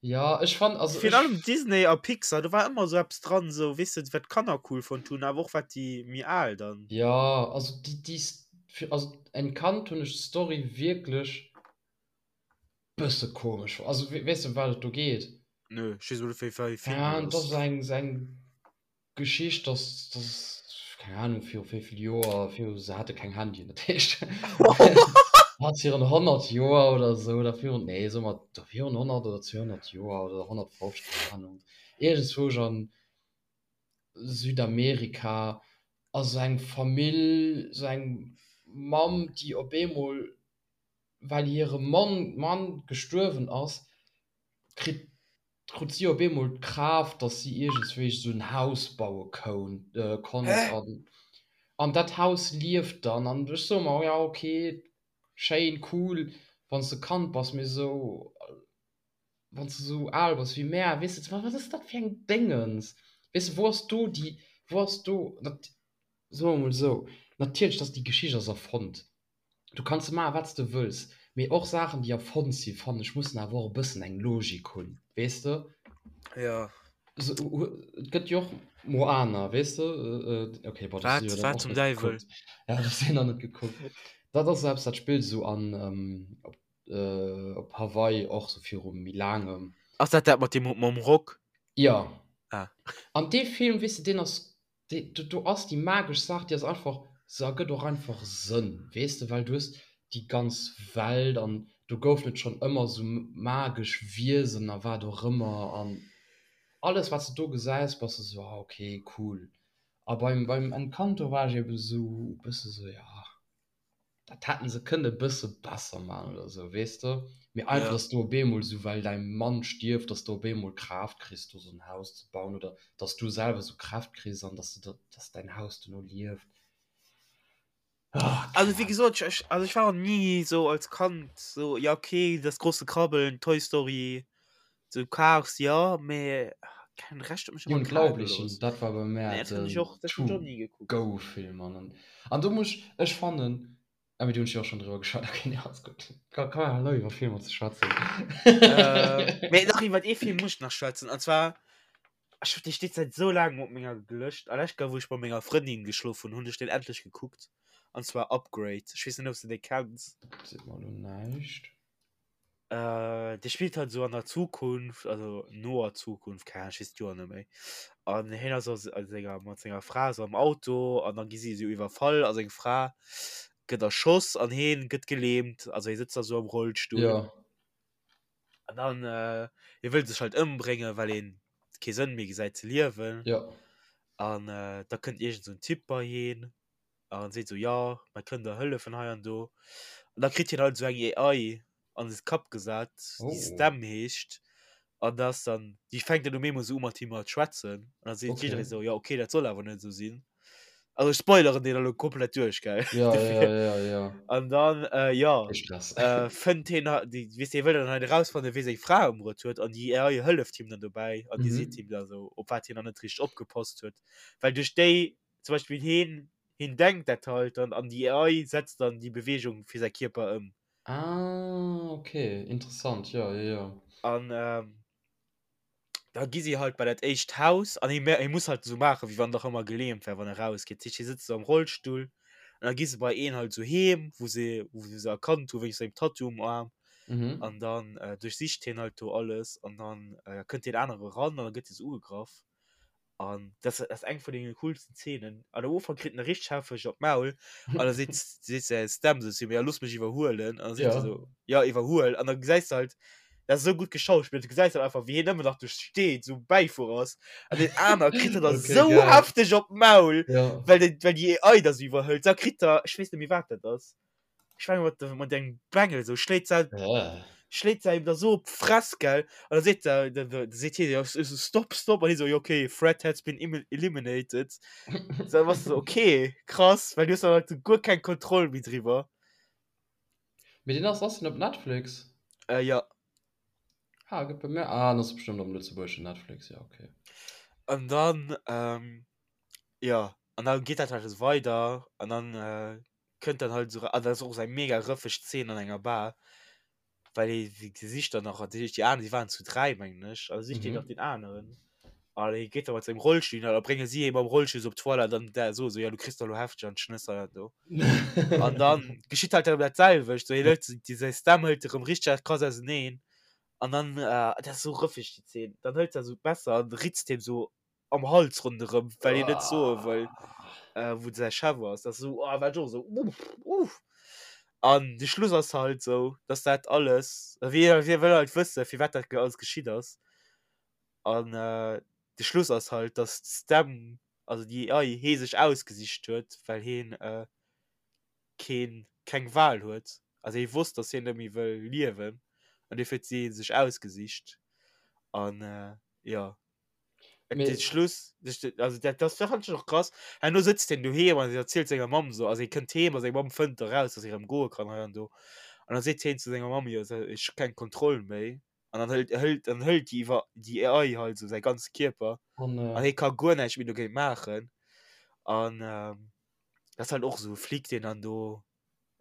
Ja, ech fann, also Virun ech. allem Disney a Pixar, do war ëmmer esou eppes dran, esou, weess de, wat d'Kanner cool fonnt hunn, awer och wat déi méi al dann. Ja, also déi, déi, also Encanto hunn ech d'Story wierklech Bësse komesch. Also weess de ëm wat et do geet? Nö, ech weess net wéi wéi Film Ja, dat et ass ass. eng eng Geschicht, dass dass keng Ahnung viru wéi vill Joer, viru se hate keng Handyen, dat heescht hat virun 100 Joer oder esou oder virun, nee soe mer do virun 100 oder 200 Joer oder 150, keng Ahnung, iergendzwousch an Südamerika ass esou eng Famill, esou eng Mamm, déi op eemol well hire Mann Mann gestuerwen ass, kritt krut si op eemol d'Kraaft, dass si iergendswéi esou en Haus baue koun konnt an an dat Haus lieft dann. An ech soe mer, jo ok, schéin, cool, wann s de Kand bass, mee esou wann s de esou al bass wéi mär, weess de, wat ass dat fir eng Déngens? Weess de, wou ass do déi, wou ass do, soe mer emol esou, natierlech, dass déi Geschicht ass erfonnt, Du kanns maachen, wat s de wëlls, mee och Saachen, déi erfonnt sinn, fannen ech, mussen awer och e bëssen eng Logik hunn, weess de? Jo. Et gëtt jo och Moana, weess de? Ok, bon, dat Wat? hu jo dann Wat och zum net Däiwel? gekuckt. Ja, dat hu jo nach net gekuckt. Dat ass eppes, dat spillt esou an op op Hawaii och sou viru méi laangem. Ass dat dat mat deem mam Rock? Jo. Ah. An dee Film, weess de, deen ass, dee, do, do ass déi magesch Saach, déi ass einfach, se ergëtt och einfach Sënn, weess de, well du hues déi ganz Welt an do goufen et schonn ëmmer sou magesch Wiesen a wat och ëmmer an alles, wat s de do gesäis, bass de sou, ah okay, cool. A beim, beim Encanto war ech eben sou e bësse sou, ja. Dat hätten se kënne bësse besser man oder sou, weess de? Mee einfach, dass du op eemol sou, well däi Mann stierft, dass du op eemol Kraaft kriss, do sou en Haus ze bauen oder dass du selwer sou Kräft kriss an dass du, dass däin Haus duerno lieft. Ah, Also wéi gesot, ech, also ech war och ni sou als Kand sou, ja okay, das große Krabbeln, Toy Story, sou Cars, jo, mee keng Recht huet mech Die ëmmer kal Unglaublichen, gelooss. dat war bei mär Nee, dat hunn ech den och, dat hunn ech och ni gekuckt. To-Go-Film an an do muss ech, ech fannen, ah mee do hunn ech jo och schonn driwwer geschwat, okay, nee, alles gutt, ka ka halen op iwwer Filmer ze schwätzen. Äh, mee nach iwwer ee Film muss ech nach schwätzen, an zwar, ech, dee steet säit sou laangem op menger Lëscht, a lescht Kéier wou ech bei menger Frëndin geschlof hunn, hunn ech deen endlech gekuckt, an zwar Upgrade, ech weess net, ob s de dee kenns. Seet mer elo näischt. Äh, dee spillt halt esou an der Zukunft, also noer Zukunft, keng Ahnung, ech weess d'Joer net méi. An hien ass a senger, mat senger Fra esou am Auto an da gi si esou iwwerfall a seng Fra gëtt erschoss an hien gëtt gelähmt, also hie sëtzt da esou am Rollstull. Ja. An dann, äh, hie wëll sech halt ëmbréngen, well hien kee Sënn méi gesäit ze liewen. Ja. An äh, da kënnt iergend esou en Typ bei hien an seet sou, jo, mer kënnen der hëllefen hei an do. An da kritt hien halt esou eng AI an de Kapp gesat, déi Oh. Stem heescht. An da ass dann, déi fänkt dann um eemol sou u mat him mat schwätzen. An da seet Okay. jidderee sou, jo, okay, dat soll awer net esou sinn. Also ech spoileren deen elo komplett duerch, gell? Ja, ja, Dofir. ja, ja. An dann, äh, jo, Kee Stress. äh, fënnt hien ha-, déi, weess de, hie wëll dann halt erausfannen, wee seng Fra ëmbruet huet. An déi AI hëlleft him dann dobäi an déi seet Mhm. him da sou, op wat hien nach net richteg opgepasst huet. Well duerch déi zum Beispill heen, heen denkt dat halt dann an déi AI setzt dann déi Beweegung fir säi Kierper ëm. Ah, okay, interessant, jo, jo, jo. An ähm, da gi si halt bei dat éischt Haus an hie, hie muss halt esou maachen, wéi wann en nach ëmmer gelähmt wär, wann e rausgeet. Dat heescht, hie sëtzt esou am Rollstull an da gi se bei een halt esou heem, wou se, wou se se erkannt hu wéinst sengem Tattoo um Aarm. Mhm. An dann äh, duerchsicht hien halt do alles an dann äh, kënnt deen anere ran an da gëtt hie sou ugegraff. An das ass eng vun den coolsten Szenen. An am Ufank kritt en richteg hefteg op d'Maul an da seet seet säi Stem sou zu him, ja looss mech iwwerhuelen. An da seet Ja. se sou, ja iwwerhuel. An da gesäis de halt, dat ass esou gutt geschauspillt, du gesäis halt einfach wéi hien ëmmer nach do steet, sou Bäifuerer ass. An deen aner kritt dann Okay, esou geil. hefteg op d'Maul, Ja. well den well déi AI da sou iwwerhëlt. Da kritt er, ech weess net méi wat dat ass. Ech mengen mat mat engem Bengel sou schléit se Äh. schléit se ihm da so op d'Fress gell an da seet se da da seet hie jo so stop stop an hie so jo okay threat has been eliminated so da bass du so okay krass well du hues dann halt so guer keng Kontroll méi driwwer. Mee deen ass ass den op Netflix? Äh jo. Ah gëtt bei mir ah den ass bestëmmt am lëtzebuergeschen Netflix ja okay. An dann ähm jo an da geet dat halt esou weider an dann äh kënnt dann halt esou, an dat ass och esou eng mega rëffeg Zeen an enger Bar, well hie si sicht dann nach, déi déi aner, déi waren zu 3 mengen ech, a sicht hien nach Mhm. deen aneren an hie geet da mat sengem Rollstull hin an da brénge si hie mam Rollstull esou op d'Toilette an der soe sou, jo du kriss der elo hefteg an d'Schnëss hei an do. An dann geschitt halt erëm dat selwecht, sou hien hëlt déi säi Stem hëlt erëm richteg krass auseneen an dann, dat ass esou rëffeg déi Zeen, dann hëlt se esou d'Messer an ritzt him esou am Hals ronderëm, well hien net soe wëll, äh, wou säi Chef ass. Dat ass esou, oh, war ech och esou, uff, uff. An de Schluss ass halt esou, dass dat alles, wie, wie wëll halt wësse, firwat dat alles geschitt ass. An äh, de Schluss ass halt, dass d'Stem, also déi AI, hee sech ausgesicht huet, well heen äh, keen, keng Wahl huet. Also hie wosst, dass hien net méi wëll liewen an dofir huet si hie sech ausgesicht. An äh, jo. Mee De Schluss, also dat, dat fand ich och krass. Herno sëtzt hien doheem an erzielt senger Mamm so, also hie kënnt heem a seng Mamm fënnt eraus, dass hie erëm goe kann hei an do. An da seet hien zu senger Mamm, jo, ech hu keng Kontroll méi. An dann hëlt, hëlt, dann hëlt déi iwwer déi AI halt esou säi ganze Kierper an, an hie ka guer näischt méi dogéint maachen. An dat ass halt och esou e Flic, deen dann do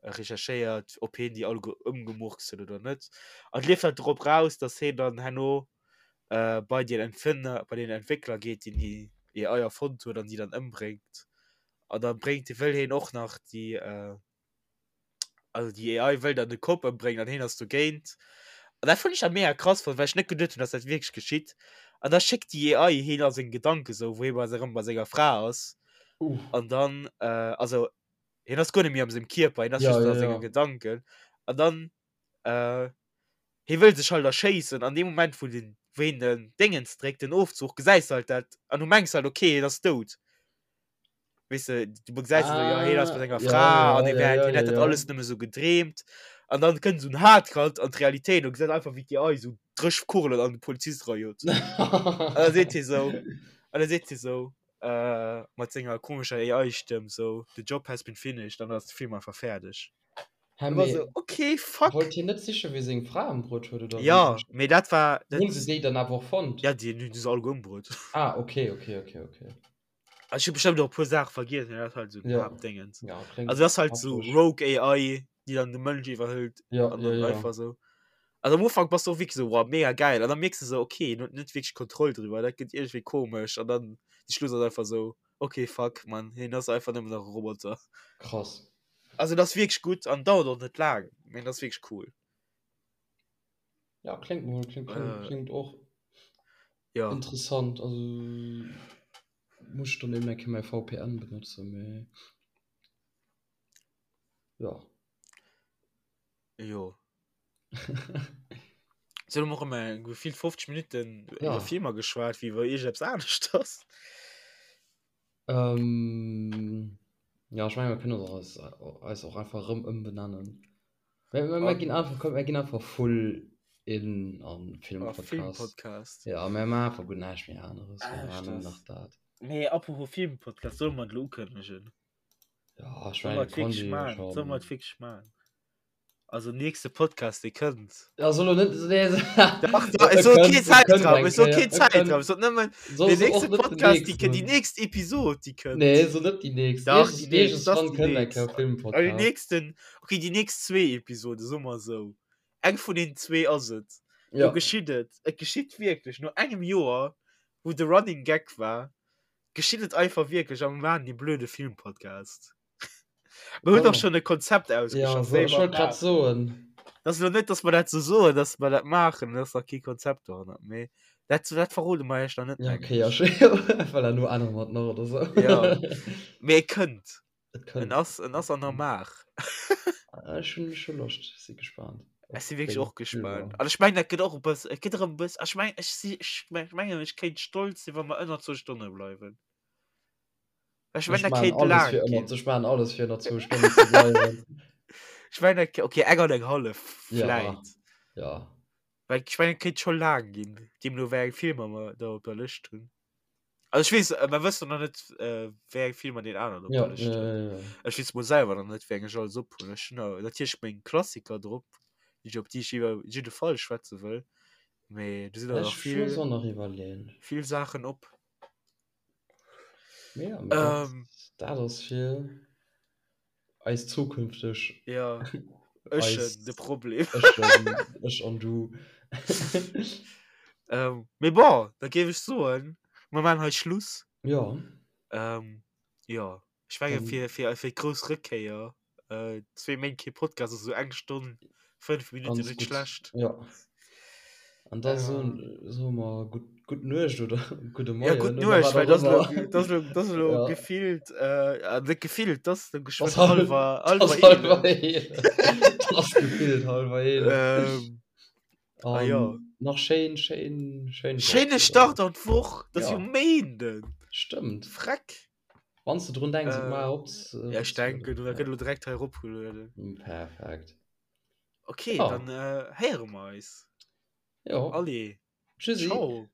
recherchéiert, ob hien déi alleguer ëmgemurkst huet oder net. An et leeft halt drop raus, dass hien dann herno äh, bei den Empfänger, bei den Entwéckler geet, deen déi AI erfonnt huet an déi dann ëmbréngt. An dann bréngt, wëll hien och nach déi, äh, Also déi AI wëll dann de Cop ëmbréngen an hien ass dogéint. An dat fand ech dann mega krass, well ech net geduet hunn, dass dat wierklech geschitt. An da schéckt déi AI hien a seng Gedanken sou, wou hie bei erëm bei senger Fra ass. Uh. An dann, äh, also hien ass guer net méi am sengem Kierper, hien ass Ja, just ja, a senge ja. Gedanken. An dann, äh, hie wëll sech halt erschéissen an deem Moment, wou den, wou hien den Déngens dréckt, den Ofzuch, gesäis de halt dat an du mengs halt, okay, hien ass dout. Weess de, du gesäis ah, ja, hien ass mat enger ja, Fra ja, an hie ja, wär, ja, hien ja, hätt dat ja. alles nëmme sou gedreemt. An dann kënnt sou en Hardcut an d'Realitéit an gesäit einfach, wéi d'AI sou dréch Kugelen an de Polizist rajot. An da seet hie sou, an da seet hie sou, äh, mat senger komescher AI-Stëmm sou, The job has been finished, an dann ass de Film einfach fäerdeg. Hä, War mee sou, okay, fuck. wollt hien net sichen, wie seng Fra ëmbruet huet, oder wéi? Ja, mee dat war, dat, Hunn se déi dann awer och fonnt? ja, déi hunn se alleguer ëmbruet. Ah, okay, okay, okay, okay. Also ich hab bestimmt auch e puer Saache vergiess, mee dat ass halt sou den Ja. Haaptdéngens. Ja, kléngt Also dat ass halt sou hafteg. Rogue AI, déi dann de Mënsch iwwerhëlt Ja, an ja, dann ja. einfach sou. Also am Ufank bass du och wierklech sou, wow, mega geil. An dann mierks du sou, okay, en huet net wierklech Kontroll driwwer, dat gëtt iergendwéi komesch. An dann de Schluss ass einfach sou, okay, fuck, man, hien ass einfach nëmmen nach e Roboter. Krass. Also dat ass wierklech gutt an dauert och net laang, mee dat ass wierklech cool. Ja, klingt mol, klingt, klingt, Äh, klingt och ja. interessant. Also muss ich dann eben eng Kéier mäi VPN benutzen, mee ja. Jo. So, elo maache mer gefillt 50 Minutten Ja. iwwer Filmer geschwat, wéi iwwer iergendeppes aneschters. Ähm, ja, ech menge mer kënnen och eis, eis och einfach erëm ëmbenennen. Mir, mir, mir ginn einfach, komm, mir ginn einfach full in an Filmpodcast. Filmpodcast. Ja, mir maachen einfach guer näischt méi aneres. Mir Ah, maachen nëmmen das. nach dat. Mee apropos Filmpodcast, solle mer et elo ukënnegen? Ja, ech Solle mer mengen, et wierklech Conny maachen? Solle mer schon. et wierklech maachen? Also nächste Podcast, dee kënnt. Ja, soll lo net, nee, Dach, dach, ech soll keen Zäitraum, ech soll keen Zäitraum, ech soll nëmmen den nächste Podcast, déi kënnt, déi nächst Episod, déi kënnt. Nee, so net déi nächst. Dach, déi nächst, das Iergendwann déi kënnt eng nächst. Kéier Ah, déi Filmpodcast. nächsten, okay, déi nächst zwee Episode, soe mer esou. Eng vun den zwee ass et. Do Ja. geschitt et. Et geschitt wierklech, no engem Joer, wou de Running Gag war, geschitt et einfach wierklech a mer maachen dee blöde Filmpodcast. Mir hunn doch schon e Konzept ausgeschafft. Ja, so, ich wollt grad soen. Das lo net, dass mer dat so soen, dass mer dat maachen, dass nach kee Konzept dohannert. Mee dat, dat verrode mer iech nach net. Ja, okay, ja, schön. Well elo ännere mer et nach oder so. Ja. Mee et kënnt. Et kënnt. En ass, en ass an der Maach. Ech hunn scho Loscht, si gespaant. Ech si wierklech och gespaant. An ech mengen, dat gëtt och e bëss, et gëtt erëm e bëss, ech mengen, ech si, ech mengen, ech kéint stolz sinn, wa mer ënner zwou Stonne bleiwen. Ech Ech mengen, dat maachen kéint alles laang fir ënner, ginn. ech maachen alles fir ënner zwou Stonnen ze bleiwen. Ech mengen, dat, okay, eng an eng hallef Ja, vläit. ja. Well ech mengen, et kéint scho laang ginn, deemno wéi eng Filmer mer da op der Lëscht hunn. Also ech weess, mer wëssen nach net, wéi eng Filmer deen aneren op Ja, der Lëscht ja, huet. ja, ja. Ech weess mol selwer nach net, wéi eng ech alles op hunn. Ech hunn da natierlech meng Klassiker drop, déi ech op déi ech iwwer jidde Fall schwätze wëll, mee do sinn der Ech nach vill, muss och nach iwwerleeën. vill Saachen op. Ja, mee dat, Ähm. dat ass fir eis zukünfteg. Ja, ech de Problem. Ech, ech an du. ähm, mee bon, da géif ech soen, mer maachen hei Schluss. Ja. Ähm, ja, ech menge fir, fir, fir d'grouss Rëckkéier Äh, zwee Méint kee Podcast, also eng Stonn, fënnf Minutten, Ganz net gutt. schlecht. Ja. An da soen Äh. soe mer gutt, gutt Nuecht oder gudde Ja, Moien gutt oder Nuecht, wat well och das elo, ëmmer. das elo, das elo Ja. gefillt, äh, net gefillt, das elo Das geschwënn hal- hallwer, das hallwer hallwer 11. 11. Das gefillt hallwer 11. Ähm, ah An ja. nach schéin, schéin, schéin Woch Schéine oder? Start an d'Woch, das Ja. jo Méinden. Stëmmt. Freck. Wann s de drun denks, et Äh, mar op, ja, ech denken, du ja. gëtt elo direkt hei eropgelueden. Perfekt. Okay, Ja. dann äh, héiere mer eis. Jo. Allez. Tschüssi. Ciao.